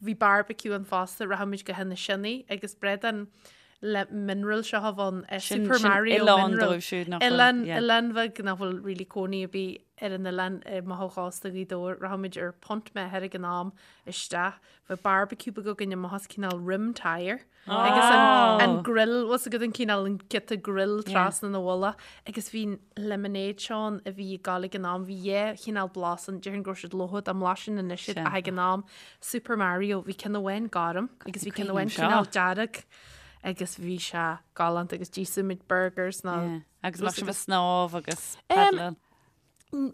Bhí barbecue ann fosta, rachadh muid go hInis Sionna agus bradán le mineral seo a bhí ann, Sin Super sin Mario oileán mineral. dóibh siúd nach bhfuil, Oileán, yeah. oileán bheag nach bhfuil really cónaí ar bith ar an oileán amach ó chósta Ghaoth Dobhair. Rachadh muid ar punt m'athar ag an am isteach. Bheadh barbecue beag againn amach as cineál rim tyre. Agus an, an grill, bhfuil a fhios agat an cineál an giota grill trasna na mhullach. Agus bhí an lemonade seo ann a bhí ag gabháil ag an am, bhí dhá chineál blas ann, déarfainn go raibh siad lofa dá mblaiseann anois iad ach ag an am, Super Mario, bhí ceann amháin gorm agus bhí ceann amháin Cuimhním cineál seo. dearg agus bhí sé galánta agus d'íosfadh muid burgers ná Yeah. Agus bheadh sibh ag snámh agus paddláil.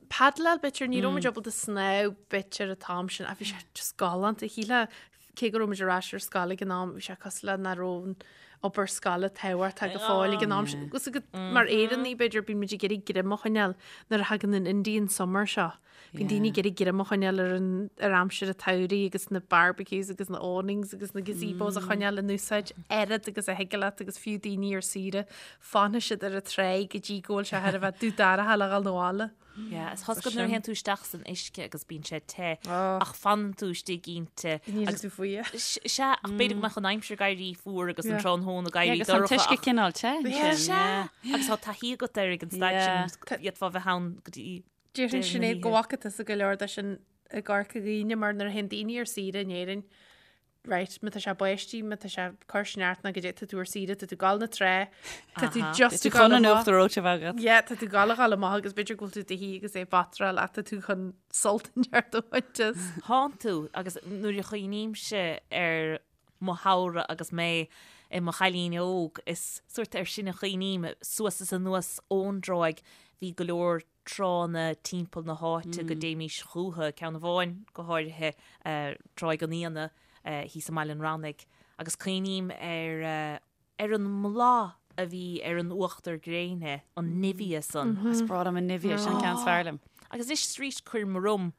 Paddláil b'fhéidir, ní raibh muid ábalta snámh b'fhéidir an t-am sin ach bhí sé just galánta. Shílfeá cé go raibh muid ar ais ar scoil ag an am, bhí sé cosúil le nach raibh an obair scoile tábhachtach go fóill ag an am sin. Agus mar Éireannaigh b'fhéidir bíonn muid ag iarraidh greim a choinneáil nuair a thagann an Indian summer seo. Bíonn daoine ag iarraidh greim a choinneáil ar an ar aimsir an tsamhraidh agus na barbecues agus na awnings agus na gazebos a choinneáil in úsáid oiread agus a thig leat agus fiú daoine ar saoire fanfaidh siad ar an tráigh go dtí go bhfuil sé thar a bheith dubh dorcha le dhul 'na bhaile. Yeah, is tá a fhios agat nuair a théann tú isteach san uisce agus bíonn sé te ach fanann tú istigh inti. Ní tú faoi. Sea, ach b'fhéidir go mbeadh an aimsir ag éirí fuar agus an tráthnóna ag éirí Agus an dorcha. t-uisce ach- cineál te. ansin, Sea, agus tá taithí agat air ag an staid sin, d'fhéadfá bheith ann go dtí Déarfainn deireadh na Sinéad go hoíche. bhfaca tusa go leor de sin i gCorca Dhuibhne mar nuair a théann daoine ar saoire in Éirinn, right, má tá sé báistí, má tá sé ag cur sneachta nó goidé, tá tú ar saoire, tá tú ag gabháil 'na trá, tá tú just Tá tú ag gabháil chun an amach. uachtar reoite a bheith agat. Yeah, tá tú ag gabháil a ghabháil amach agus b'fhéidir go bhfuil tú i do shuí agus é ag batráil ach tá tú chun sult inteacht a bhaint as. Tánn tú, agus nuair a chuimhnímse ar mo shamhradh agus mé i mo chailín óg, is sórt air sin a chuimhním, suas is anuas ón dtráigh, bhí go leor tránna timpeall na háite go dtéimís chúthu, ceann amháin go háirithe, Tráigh an Fhíona thíos i mBaile an Rannaigh, agus cuimhním ar ar an mblath a bhí ar an uachtar gréine, an Nivea san. Is breá liom an Nivea, sin an ceann is fearr liom. Agus anois is arís cuirim orm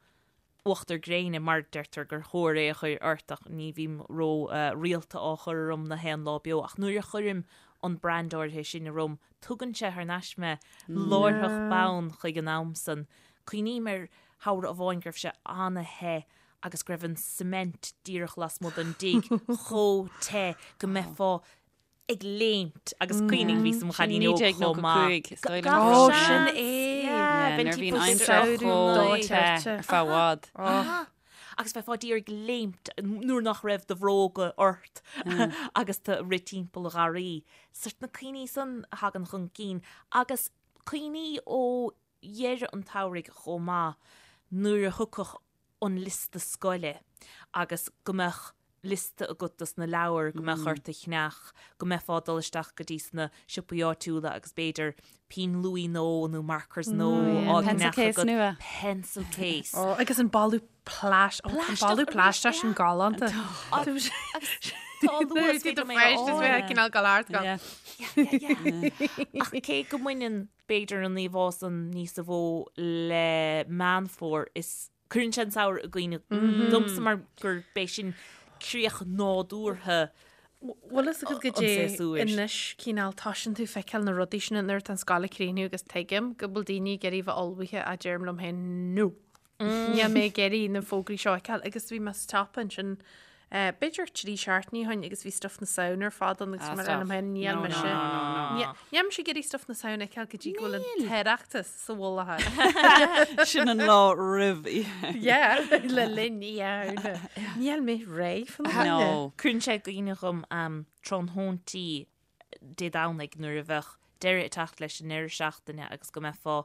uachtar gréine mar deirtear gur chóir é a chur ort ach ní bhím ró rialta á chur orm na haon lá beo ach nuair a chuirim an brand áirithe sin orm, tugann sé thar n-ais mé láithreach bonn chuig an am san. Cuimhním ar shamhradh amháin go raibh sé ana-the agus go raibh an cement díreach lasmuigh den dtigh chomh te go mbeifeá ag léimt agus cuimhnigh bhíos i mo chailín óg chomh maith. 1995, is dóigh liom. Ó, sin é! Nuair a bhí an aimsir chomh te ar feadh i bhfad. Agus bheifeá díreach ag léimt nuair nach raibh do bhróga ort agus tú ag rith timpeall an gharraí. Sort na cuimhní san a thagann chun cinn agus cuimhní ó dheireadh an tsamhraidh chomh maith nuair a thiocfadh an liosta scoile agus go mbeadh liosta agat dos na leabhair go mbeadh ort a cheannach, go mbeifeá ag dul isteach go dtí sna siopaí áitiúla agus b'fhéidir pinn luaidhe nua nó markers nua á Pencil gceannach case agat. nua. Pencil case. Ó, agus an boladh plais, ó, an boladh plaisteach sin galánta. Agus tá an luas Nuair féidir a mé a bhí fháil. cineál gal ard go. Yeah. Yeah, yeah, yeah. Ach cé go mbaineann b'fhéidir an íomhá san níosa mhó le Meán Fómhair is cuireann sé an samhradh i gcuimhne domsa mar gur b'é sin críoch nádúrtha Bhfuil fhios agat go an dté séasúir. anois cineál toisíonn tú feiceáil na rudaí sin nuair atá an scoil ag críochnú agus tuigim go bhfuil daoine ag iarraidh bheith ullmhaithe ach deirim liom féin no. Níl mé ag iarraidh na fógraí seo a fheiceáil agus bhí mé sa tsiopa ansin b'fhéidir 3 seachtainí ó shin agus bhí stuff na Samhna ar fad ann agus bhí mé ag rá liom féin níl mise níl mise ag iarraidh stuff na Samhna a fheiceáil go dtí go bhfuil an tOireachtas sa mhullach air. Sin an lá roimh oíche. Yeah, le linn Oíche Shamhna. Níl mé réidh fá choinne. No. Cuireann sé i gcuimhne dhom tráthnóintí Dé Domhnaigh nuair a bheadh deireadh ag teacht leis an ndeireadh seachtaine agus go mbeifeá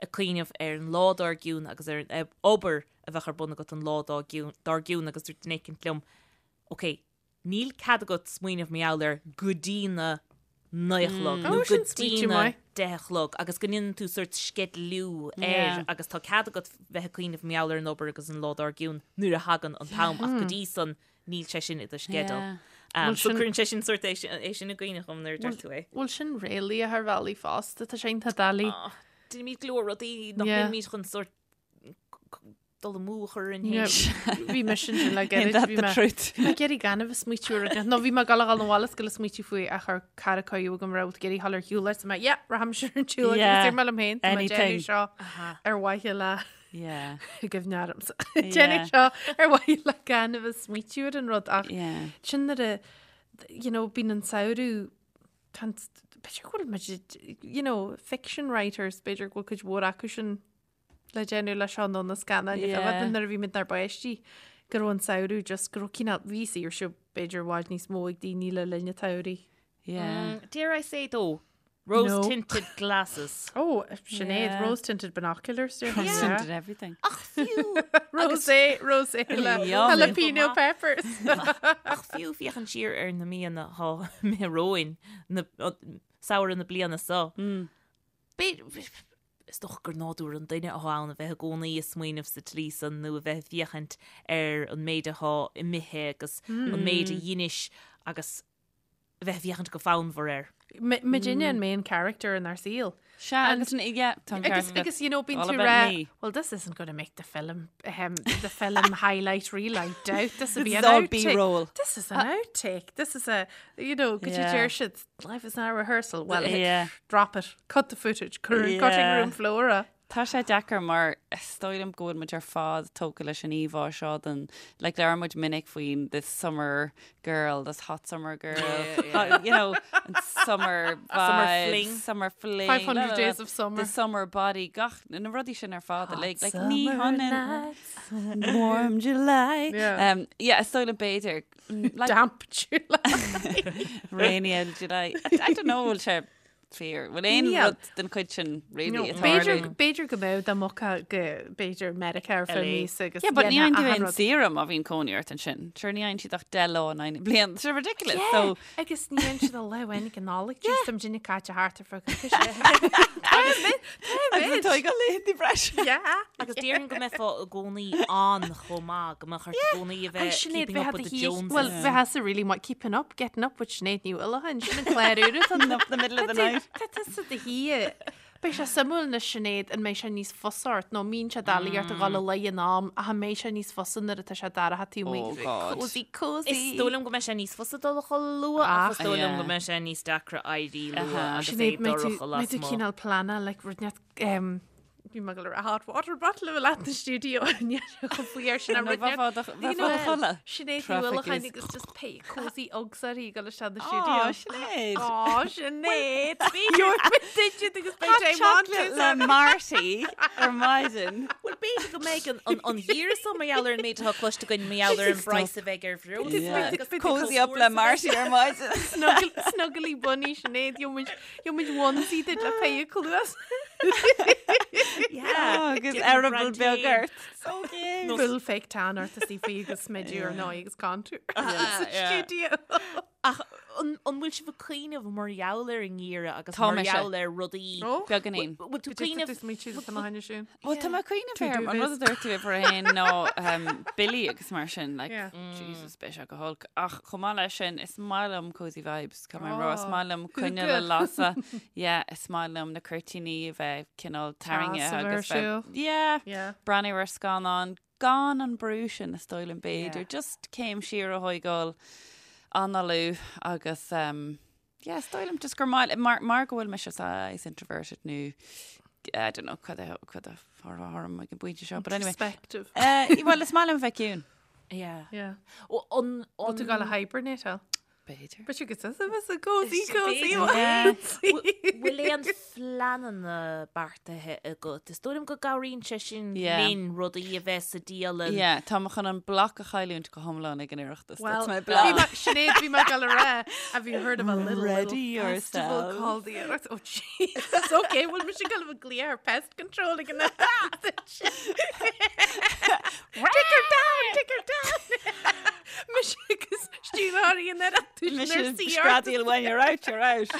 ag cuimhneamh ar an lá dár gcionn agus ar an obair a bheadh ar bun agat an lá dár gcionn agus dúirt duine éicint liom, ok, níl cead agat smaoineamh mar gheall air go dtí na naoi a chlog nó go dtí na deich a chlog agus go ndéanann tú sórt sceidealú air agus tá cead agat bheith ag cuimhneamh mar gheall ar an obair agus an lá dár gcionn nuair a thagann an t-am ach go dtí san níl sé sin i do sceideal. So cuireann sé sin sórt é sin i gcuimhne dhom nuair a deir tú é. Bhfuil sin réalaíoch ar bhealaí fosta, tá sé iontach doiligh. Déanaimid go leor rudaí nach ndéanaimid chun sórt dul amú a chur orainn féin. Bhí mise ansin le gairid. Bhí mé ag iarraidh gan a bheith smaoitiú ar rud nó bhí mé ag dul a dhul 'na bhaile is ag dul a smaoitiú faoi ach chuir cara cuireadh agam raibh ag iarraidh dhul ar shiúl leis mé yeah rachaimse ar an tsiúl agus dúirt mé liom féin tá mé ag déanamh seo ar mhaithe le Yeah. Cuimhne ormsa. Déanamh seo ar mhaithe le gan a bheith smaoitiú ar an rud ach Yeah. sin nuair a you know, bíonn an samhradh tá an- b'fhéidir go bhfuil muid you know, fiction writers b'fhéidir go bhfuil cuid mhór acu sin le déanamh le seo nó na scannáin Yeah. yeah. nuair a bhí muid inár bpáistí go raibh an samhradh just go raibh cineál bhí saoirse b'fhéidir i bhfad níos mó ag daoine le linn an tsamhraidh. Yeah. Dare I say though, rose tinted glasses. Oh, Sinéad, Yeah. rose tinted binoculars. Yeah. Rose tinted everything. Ach fiú Rosé, rosé le Yum. jalapeno peppers. Ach fiú féachaint siar ar na míonna atá imithe romhainn, na samhradh na bliana seo. B'fhéidir, is dócha gur nádúr an duine atá ann a bheith i gcónaí ag smaoineamh sa tslí san nó a bheith ag féachaint ar an méid atá imithe agus an méid a dheinis agus a bheith ag féachaint go fonnmhar air. Muidinne an main character in ár saol. Sea, agus yeah, tá an Agus, ceart agat. agus you know, bíonn All tú about rá, me. well, this isn't going to make the film, um, the film highlight reel, I doubt. This will be This an is all outtake. B-roll. This is an outtake. This is a, you know, could you Yeah. deir siad, life is not a rehearsal. Well, Yeah. drop it, cut the footage, cutting Yeah. room floor. uh. Tá sé deacair mar is dóigh liom go bhfuil muid ar fad tógtha leis an íomhá seo den, like labhair muid minic faoin this summer girl, this hot summer girl, hot, you know, an summer vibe, Summer fling. summer fling, 500 la, la, la, days of summer. the summer body, gach, na rudaí sin ar fad, like, like ní Summer hionann nights. warm July. Yeah. Um, yeah, is dóigh liom b'fhéidir, mm, like, Damp July. rainy July. I, I don't know, bhfuil sé fíor. Bhfuil aon Níl. rud den chuid sin really ag B'fhéidir tarlú? b'fhéidir go mbeadh dá mbogfá go b'fhéidir Meiriceá ar feadh míosa agus Yeah, but ní dhéanfá fhaigheann tú achan aon rud. saoire má bhíonn cónaí ort ansin. Sure, ní fhaigheann siad ach 10 lá in aghaidh na bliana. It's ridiculous. Yeah, So, agus ní fhaigheann siad a lá amháin ag an Nollaig, just tá muidinne caite thart ar feadh coicíse. agus tá ag laethanta breise. Yeah. Agus déarfainn go mbeifeá i gcónaí on chomh maith, go mbeadh ort i gcónaí a bheith Sinéad, keeping up with the Joneses. Well, bheifeása really maith keeping up, getting up with Sinéad Ní Uallacháin, sin an clár úr atá Up the middle of the night. Tá tusa do shuí. Beidh sé suimiúil anois Sinéad an mbeidh sé níos fusa ort nó mbíonn sé doiligh ort a dhul a luí in am ach an mbeidh sé níos fusa nuair atá sé dorcha taobh amuigh Oh God. Cozy cozy. Is dóigh liom go mbeidh sé níos fusa dul a chodladh luath ach is dóigh liom go mbeidh sé níos deacra éirí luath agus é Sinéad mbeidh tú dorcha mbeidh tú lasmuigh. cineál pleanáil like rud net um, Bhí mé ag dul a rá hot water bottle a bheith leat na stiúideo chomh faoi air sin Nó bheifeá do- bheifeá do chodladh. Sinéad Ní Traffic Uallacháin is- agus just pé cozy Uggs uirthi ag dul isteach na Á, stiúideo. Sinéad. Á, Sinéad! Gheobhaidh muid duit agus beidh sé Hot chocolate le Marty ar maidin. Bhuel, b'fhéidir go mbeidh an- an- an geimhreadh seo mar gheall ar an méid atá cloiste againn mar gheall ar an bpraghas a bheidh ar bhreosla Yeah. agus Cozy up le Marty ar maidin. Snuggle- Snuggly bunny Sinéad, gheobhaidh muid Gheobhaidh muid onesie duit le pé cluas. Yeah. Agus Give eireaball beag Brandy. ort. So cute. Full fake tan ort is í faoi agus smideadh ar ndóigh agus contour. Sa yeah. stiúideo. Ach an an bhfuil sibh ag cuimhneamh mar gheall ar an ngeimhreadh agus Tá mar mise. gheall ar rudaí? Beagáinín. Bhfuil tú ag cuimhneamh Is mé siad tá haine sin. Bhuel, tá mé ag cuimhneamh Tú ar an rud a dúirt tú uimhir a haon ná um, billí agus mar sin, like, Yeah. Jesus, beidh sé go holc. Ach chomh maith leis sin, is maith liom cozy vibes. Tá mé rá, is Oh, maith liom coinneal a lasadh. Yeah, is maith liom na cuirtíní a bheith cineál tarraingthe Teas a bheith ar agus bheith- siúl. Yeah. Yeah. Breathnú ar scannán gan an brú sin is dóigh liom b'fhéidir. Yeah. Just céim siar a thógáil, análú agus um, yeah, is dóigh liom just gur maith mar, mar go bhfuil mise saghas introverted nó I don't know cad a cad a orm ag an bpointe seo, but anyway. Introspective. Uh, well, is maith liom bheith ciúin. Yeah. Yeah. Ó, An Bhfuil tú an ag dul a hibernate al? B'fhéidir. But you could say it's a cozy, cozy B'fhéidir. one. Bhfuil aon phleananna beartaithe agat? Is dóigh liom go gcabhraíonn sé sin Yeah. linn rudaí a bheith sa dialann. Yeah, tá mé chun an bloc a chailliúint go hiomlán ag an Oireachtas. Well, That's my bhí plan. mé- Sinéad, bhí mé ag dul a rá, have you heard of a little, Ready little festival yourself. called the Oireachtas? Oh, Jesus, okay, bhfuil mise ag dul a bheith ag glaoch ar pest control ag an Oireachtas. Take her down, take her down. Mise agus stiúrthóirí an Oireachtais Mise nuair sí ort. screadaíl when you're out, you're out.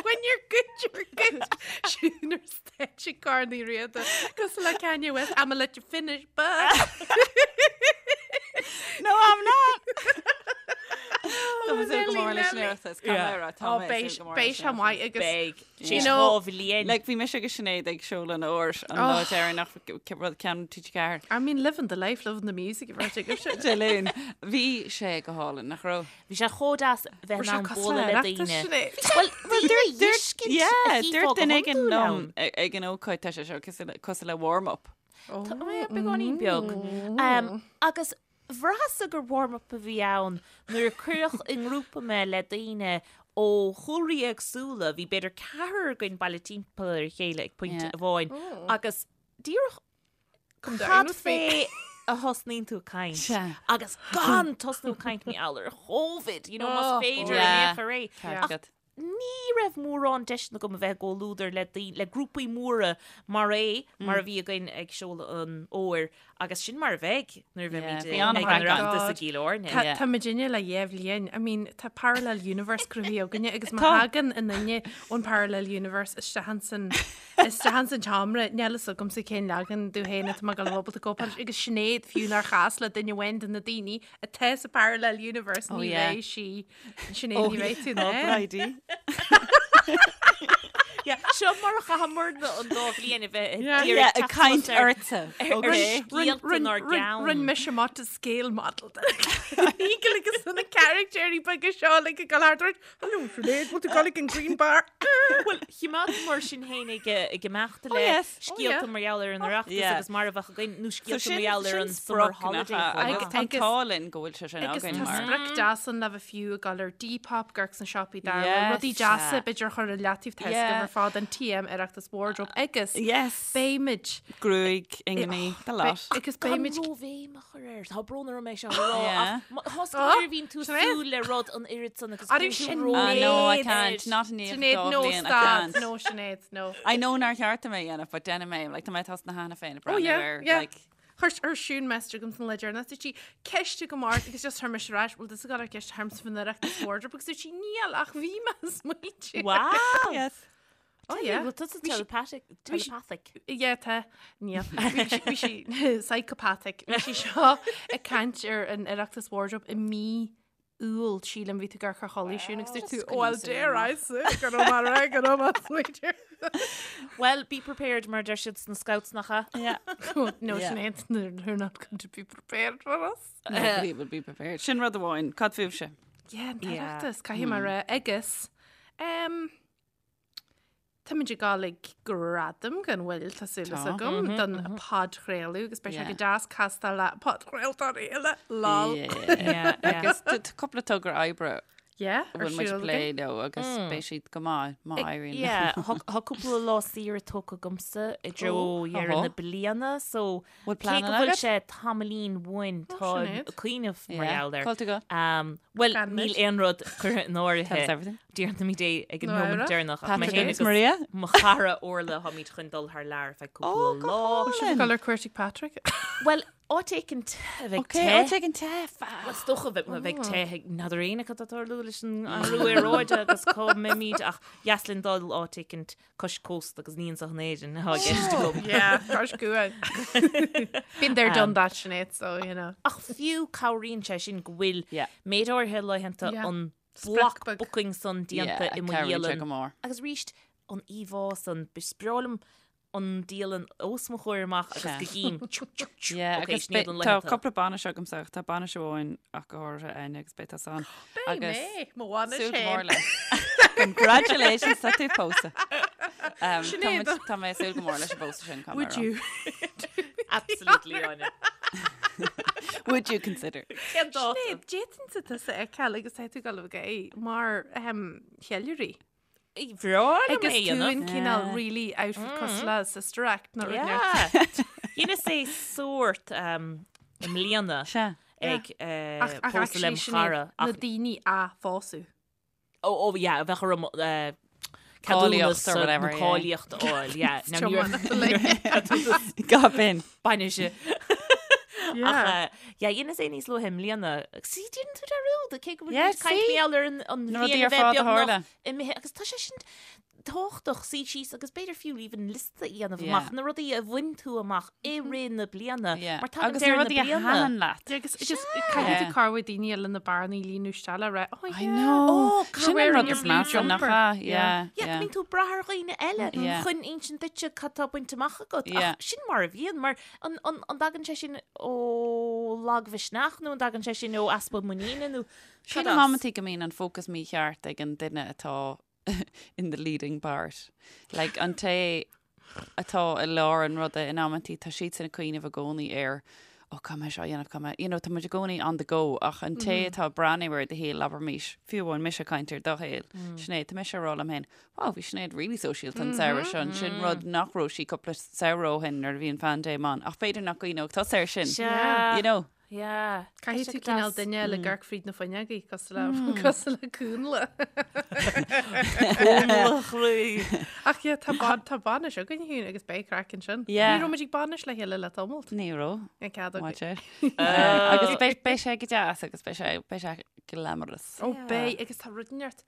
When you're good, you're good. Siún ar stáitse Corn Uí Riada. Cosúil le Kanye West, I'ma let you finish, but... No, I'm not. Tá mé súil go mór leis an Nelly. Oireachtas. Tá mé rá, tá Oh, mé beidh súil go mór beidh leis sé an maith agus Beidh. You Sé know, dhá bhliain. Like, bhí mise agus Sinéad ag seoladh an fhómhair an lá deireanach rud ceann TG4. I mean, living the life, living the music, if I take it. Dé Luain. Bhí sé go hálainn, nach raibh? Bhí sé chomh deas bheith in ann bualadh le daoine. Well, Well, dúirt Yeah, dúirt duine éigin liom ag an ócáid tá sé seo cosúil le warm-up. Tá beagáinín beag. Um, agus bhraitheas-sa gur warm-up a bhí ann nuair a cuireadh i ngrúpa mé le daoine ó chúlraí éagsúla, bhí b'fhéidir ceathrar againn bailithe timpeall ar a chéile ag pointe Yeah. amháin agus díreach Come down cad with me. fé a thosnaíonn tú ag caint Sea. agus gan tosnú ag caint mar gheall ar Covid, you know, más Oh, féidir yeah. in aon chor é. Ceart Ach agat. ní raibh mórán deiseanna agam a bheith i gcomhluadar le daoine, le grúpaí móra mar é, mar a bhí againn ag seoladh an fhómhair, agus sin mar a bheidh nuair a bheimid bhí ag an an-chraic ann. Oireachtas i gCill Airne. Tá Yeah. tá muidinne le dhá bhliain. I mean, tá parallel universe cruthaithe againne agus má Tá. thagann aon duine ón parallel universe isteach ansan isteach ansan seomra, níl fhios agamsa cén leagan de féin atá mé ag dul a bheith ábalta cóipeáil leis. Agus Sinéad fiú nár chas le duine amháin de na daoine atá sa parallel universe Oh, ní yeah. bheidh sí Sinéad ní bheidh tú Oh, in ann. Bridie. Yeah, Seo mar a chaitheamarna an dá bhliain a bheith Yeah. ag Yeah, iarraidh ag teacht caint suas ar- ortsa. ar Okay. scéalta inár gceann. Rinne mise amach de scale model. Eagle agus na caractéirí beaga seo le go thart Hello Sinéad, bhfuil tú ag dul ag an Green Bar? Bhuel, choimeádamar sinn féin ag ag imeacht le yes. Oh, yeah. scéalta mar gheall ar an Oireachtas Yeah. agus mar a bheadh againn nó So scéalta sin mar gheall ar sin an summer sprioc nach holiday. ea, chomh agus maith. tá an Agus- t-ádh linn go bhfuil sé sin Agus againn tá mar. sprioc deas ann le bheith fiú ag dul ar Depop ag amharc sna siopaí dar Yes. rudaí deasa b'fhéidir a chur i leataobh tá Yeah. ar fad an TM Oireachtas wardrobe agus Yes. beimid Gruaig, ingní, the lot. agus Gan beimid róbhéim a chur air. Tá brón orm é seo a rá, Yeah. ach thosca nuair a bhíonn tú súil le rud an oiread san agus Arú cuireann tú sin ró- Ah, no, I Sinéad. can't. Not in the Sinéad, no I stad, can't. no Sinéad, no. I know nár cheart dom é a dhéanamh, but déanfaidh mé, like, tá mé tosnaithe cheana féin ag Oh breathnú yeah, ar, yeah. like, Chuir chuir Siún message chugam san lá deireanach dúirt sí ceist agam ort agus just chuir mise ar ais, bhfuil tusa ag dul ar ceist ormsa faoin Oireachtas wardrobe agus dúirt sí níl ach bhí mé ag smaointiú. Wow! yes. Oh yeah. Bhfuil tusa Bhí sí- telepathic? bhí sí- Telepathic. Yeah, tá. Níl. Bhí sí- bhí sí psychopathic. Bhí sí seo ag caint ar an Oireachtas wardrobe i mí. Iúil, sílim, bhí tú ag amharc ar chodladh siún agus dúirt tú, Just oh, well, squeeze it dare in. I say, go raibh maith agat, go raibh maith sweeter. Well, be prepared mar deir siad sna scouts nach ea? Yeah. No, Yeah. Sinéad, they're not going to be prepared for us. Nobody will be prepared. Sin rud amháin, cad fúibhse? Yeah, an Yeah. tOireachtas, caithfidh mé rá, agus um, Táimid ag dul ag gradaim gan mhoill, tá súil Tá. agam, don podchraoladh agus beidh sé Yeah. go deas castáil le podchraoltóirí eile, lol. Yeah. Yeah, yeah. Agus tá tá cúpla togra oibre Yeah, a ar bhfuil muid siúl ag plé againn. leo agus beidh siad go maith má éiríonn. Yeah, thá cúpla lá saoire tógtha agamsa i dtreo Oh, dheireadh oho. na bliana, so Bhfuil cé pleananna go bhfuil agat? sé tamaillín uainn tá Sinéad. ag cuimhneamh mar Yeah. gheall air. Cá bhfuil tú ag dul? Um, Bhuel, Gan níl muid. aon rud curtha in Tell us áirithe everything. Déarfaimid é ag an Nó nóiméad Éire? deireanach ach mé Patrick féin agus agus Maria? mo chara Orla táimid chun dul thar lear ar feadh Oh, cúpla go lá. hálainn. Dul ar cuairt ag Patrick. Bhuel, áit éicint a bheidh Ok, te. áit éicint te, fab. Is dócha bheith bheidh te ag n'fheadar éinne cad tá ag tarlú leis an athrú aeráide agus cá mbeimid ach dheas linn dul áit éicint cois cósta agus ní anseo in Éirinn atá i gceist agam. Yeah, cois cuain. Been there, done that, Sinéad, so, you know. Ach fiú cabhraíonn sé sin go bhfuil Yeah. méid áirithe laethanta Yeah. an Sprioc block beag. booking san déanta Yeah, i mo cabhraíonn sé dhialann. go mór. Agus arís an íomhá san, is breá liom an dialann os mo chomhair amach agus Sea. go gcím tchu, tchu, tchu. Yeah, Ok, agus sin iad an beidh- tá laethanta. cúpla bainis agamsa ach tá bainis amháin ach go háirithe Áine agus beidh tusa ann. Beidh Agus mé, mo bhainis súil go mór féin. leis. Congratulations, tá tú pósta. Um, tá Sinéad. muid- Tá mé ag súil go mór leis an bpósadh sin, caithfidh mé Would a rá. you? Absolutely, Áine. Would you consider? Cén dáta? Sinéad, d'fhéadfainnse tusa a fheiceáil agus tá tú ag dul a bheith mar ehm, cheiliúraí. Bhreá liom Agus é a tú dhéanamh. in cineál really outfit cosúil le Sister Act nó rud Yeah. Dheineas é sórt um, i mbliana Sea. ag eh, Ach ach pósadh actually lem Sinéad, chara. na Ach daoine a phósadh. Oh, oh, yeah, bheadh orm eh, Cáilíocht ceadúnas or nó whatever, yeah. cáilíocht a fháil, yeah. Now, ní raibh- Tiomána like. Gab in. Bainise. Yeah. Ach, eh, yeah, dheineas é níos luaithe i mbliana. See, déanann tú dearúd, cé go bhfuil Yeah, muid ag caint see? mar gheall ar an an Na bhliain rudaí a ar bheith fad a beagnach tharla. imithe agus tá sé sin tábhachtach suí síos agus b'fhéidir fiú even liosta a dhéanamh Yeah. amach na rudaí a bhain tú amach i rith na bliana Yeah. mar tagann Agus na deireadh na rudaí a bliana. thaitin leat. Yeah, agus just caithfidh tú Yeah. cabhrú daoine eile na bearnaí a líonadh isteach le rá, oh I yeah. know. Oh, Sin an wearing rud your is blue measa nach jumper. ea? Yeah. Yeah, Yeah, go yeah. mbíonn tú ag brath ar dhaoine eile Yeah. chun insint duitse cad tá bainte amach agat. Yeah. Ach sin mar a bhíonn, mar an, an, an dtagann sé sin ó lagmhisneach nó an dtagann sé sin ó easpa muiníne nó Sin cad am as? amantaí go mbíonn an fócas mícheart ag an duine atá in the leading part. Like an té atá i lár an ruda in amantaí tá siadsan ag cuimhneamh i gcónaí ar ó caithfidh mé seo a dhéanamh, caithfidh mé, you know, tá muid i gcónaí on the go ach an té atá ag breathnú ar do shaol, abraimis, fiú amháin mise ag caint ar do shaol, Sinéad, tá mise ag rá liom féin, wow, bhí Sinéad really sóisialta an samhradh seo, sin rud nach raibh sí cúpla samhradh ó shin nuair a bhí an phaindéim ann, ach b'fhéidir nach gcuimhneodh tusa air sin, Sea. you know. Yeah. Caithfidh tú Tá sé cineál deas. duine le amharc fríd na fuinneogaí cosúil le cosúil le cúnla. Cúnla chroí. Ach yeah, tá ban tá bainis againn féin agus beidh craic ansin. Yeah. Ní raibh muid ag bainis le chéile le tamalt. Ní raibh. An cead Maith againn. sé. Eh, Agus beidh beidh sé go deas agus beidh sé beidh sé glamorous. Ó beidh agus tá rud inteacht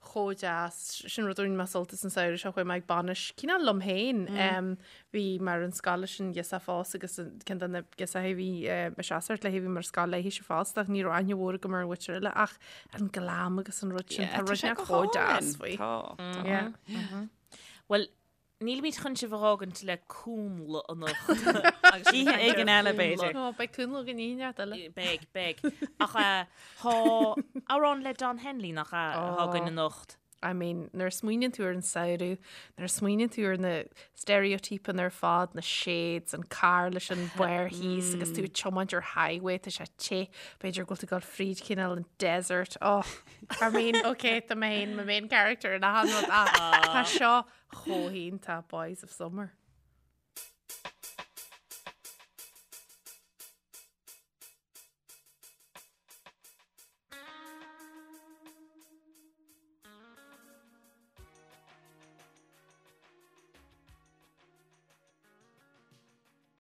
chomh deas, sin rud a bhain mé sult as an samhradh seo, chuaigh mé ag bainis cineál liom féin. Bhí mé ar an scoil leis an ghirseach fosta agus ceann de na girseachaí a bhí ag seasamh léi, bhí mé ar scoil léi fosta ach ní raibh aithne mhór agam ar an mhuintir eile ach an glam agus an rud sin, tá rud inteacht chomh deas faoi. Tá, tá. Yeah. Bhuel, Nílimid chun sibh a fhágaint le cúnla anocht. Agus sibh Oíche ag caint éigin ar eile, chúnla. b'fhéidir. Ó, beidh cúnla againn oíche inteacht eile. Beidh, beidh. Ach tá amhrán le Don Henley nach ea atá againn anocht. I mean, nuair a smaoiníonn tú ar an samhradh, nuair a smaoiníonn tú ar na steiréitípeanna ar fad, na shades, an carr leis an barr thíos agus tú ag tiomáint ar highway, tá sé te, b'fhéidir go bhfuil tú ag dul fríd cineál an desert. Oh, I mean, okay, tá mé féin, mo main character in achan rud ach tá seo chomh hiontach Boys of Summer.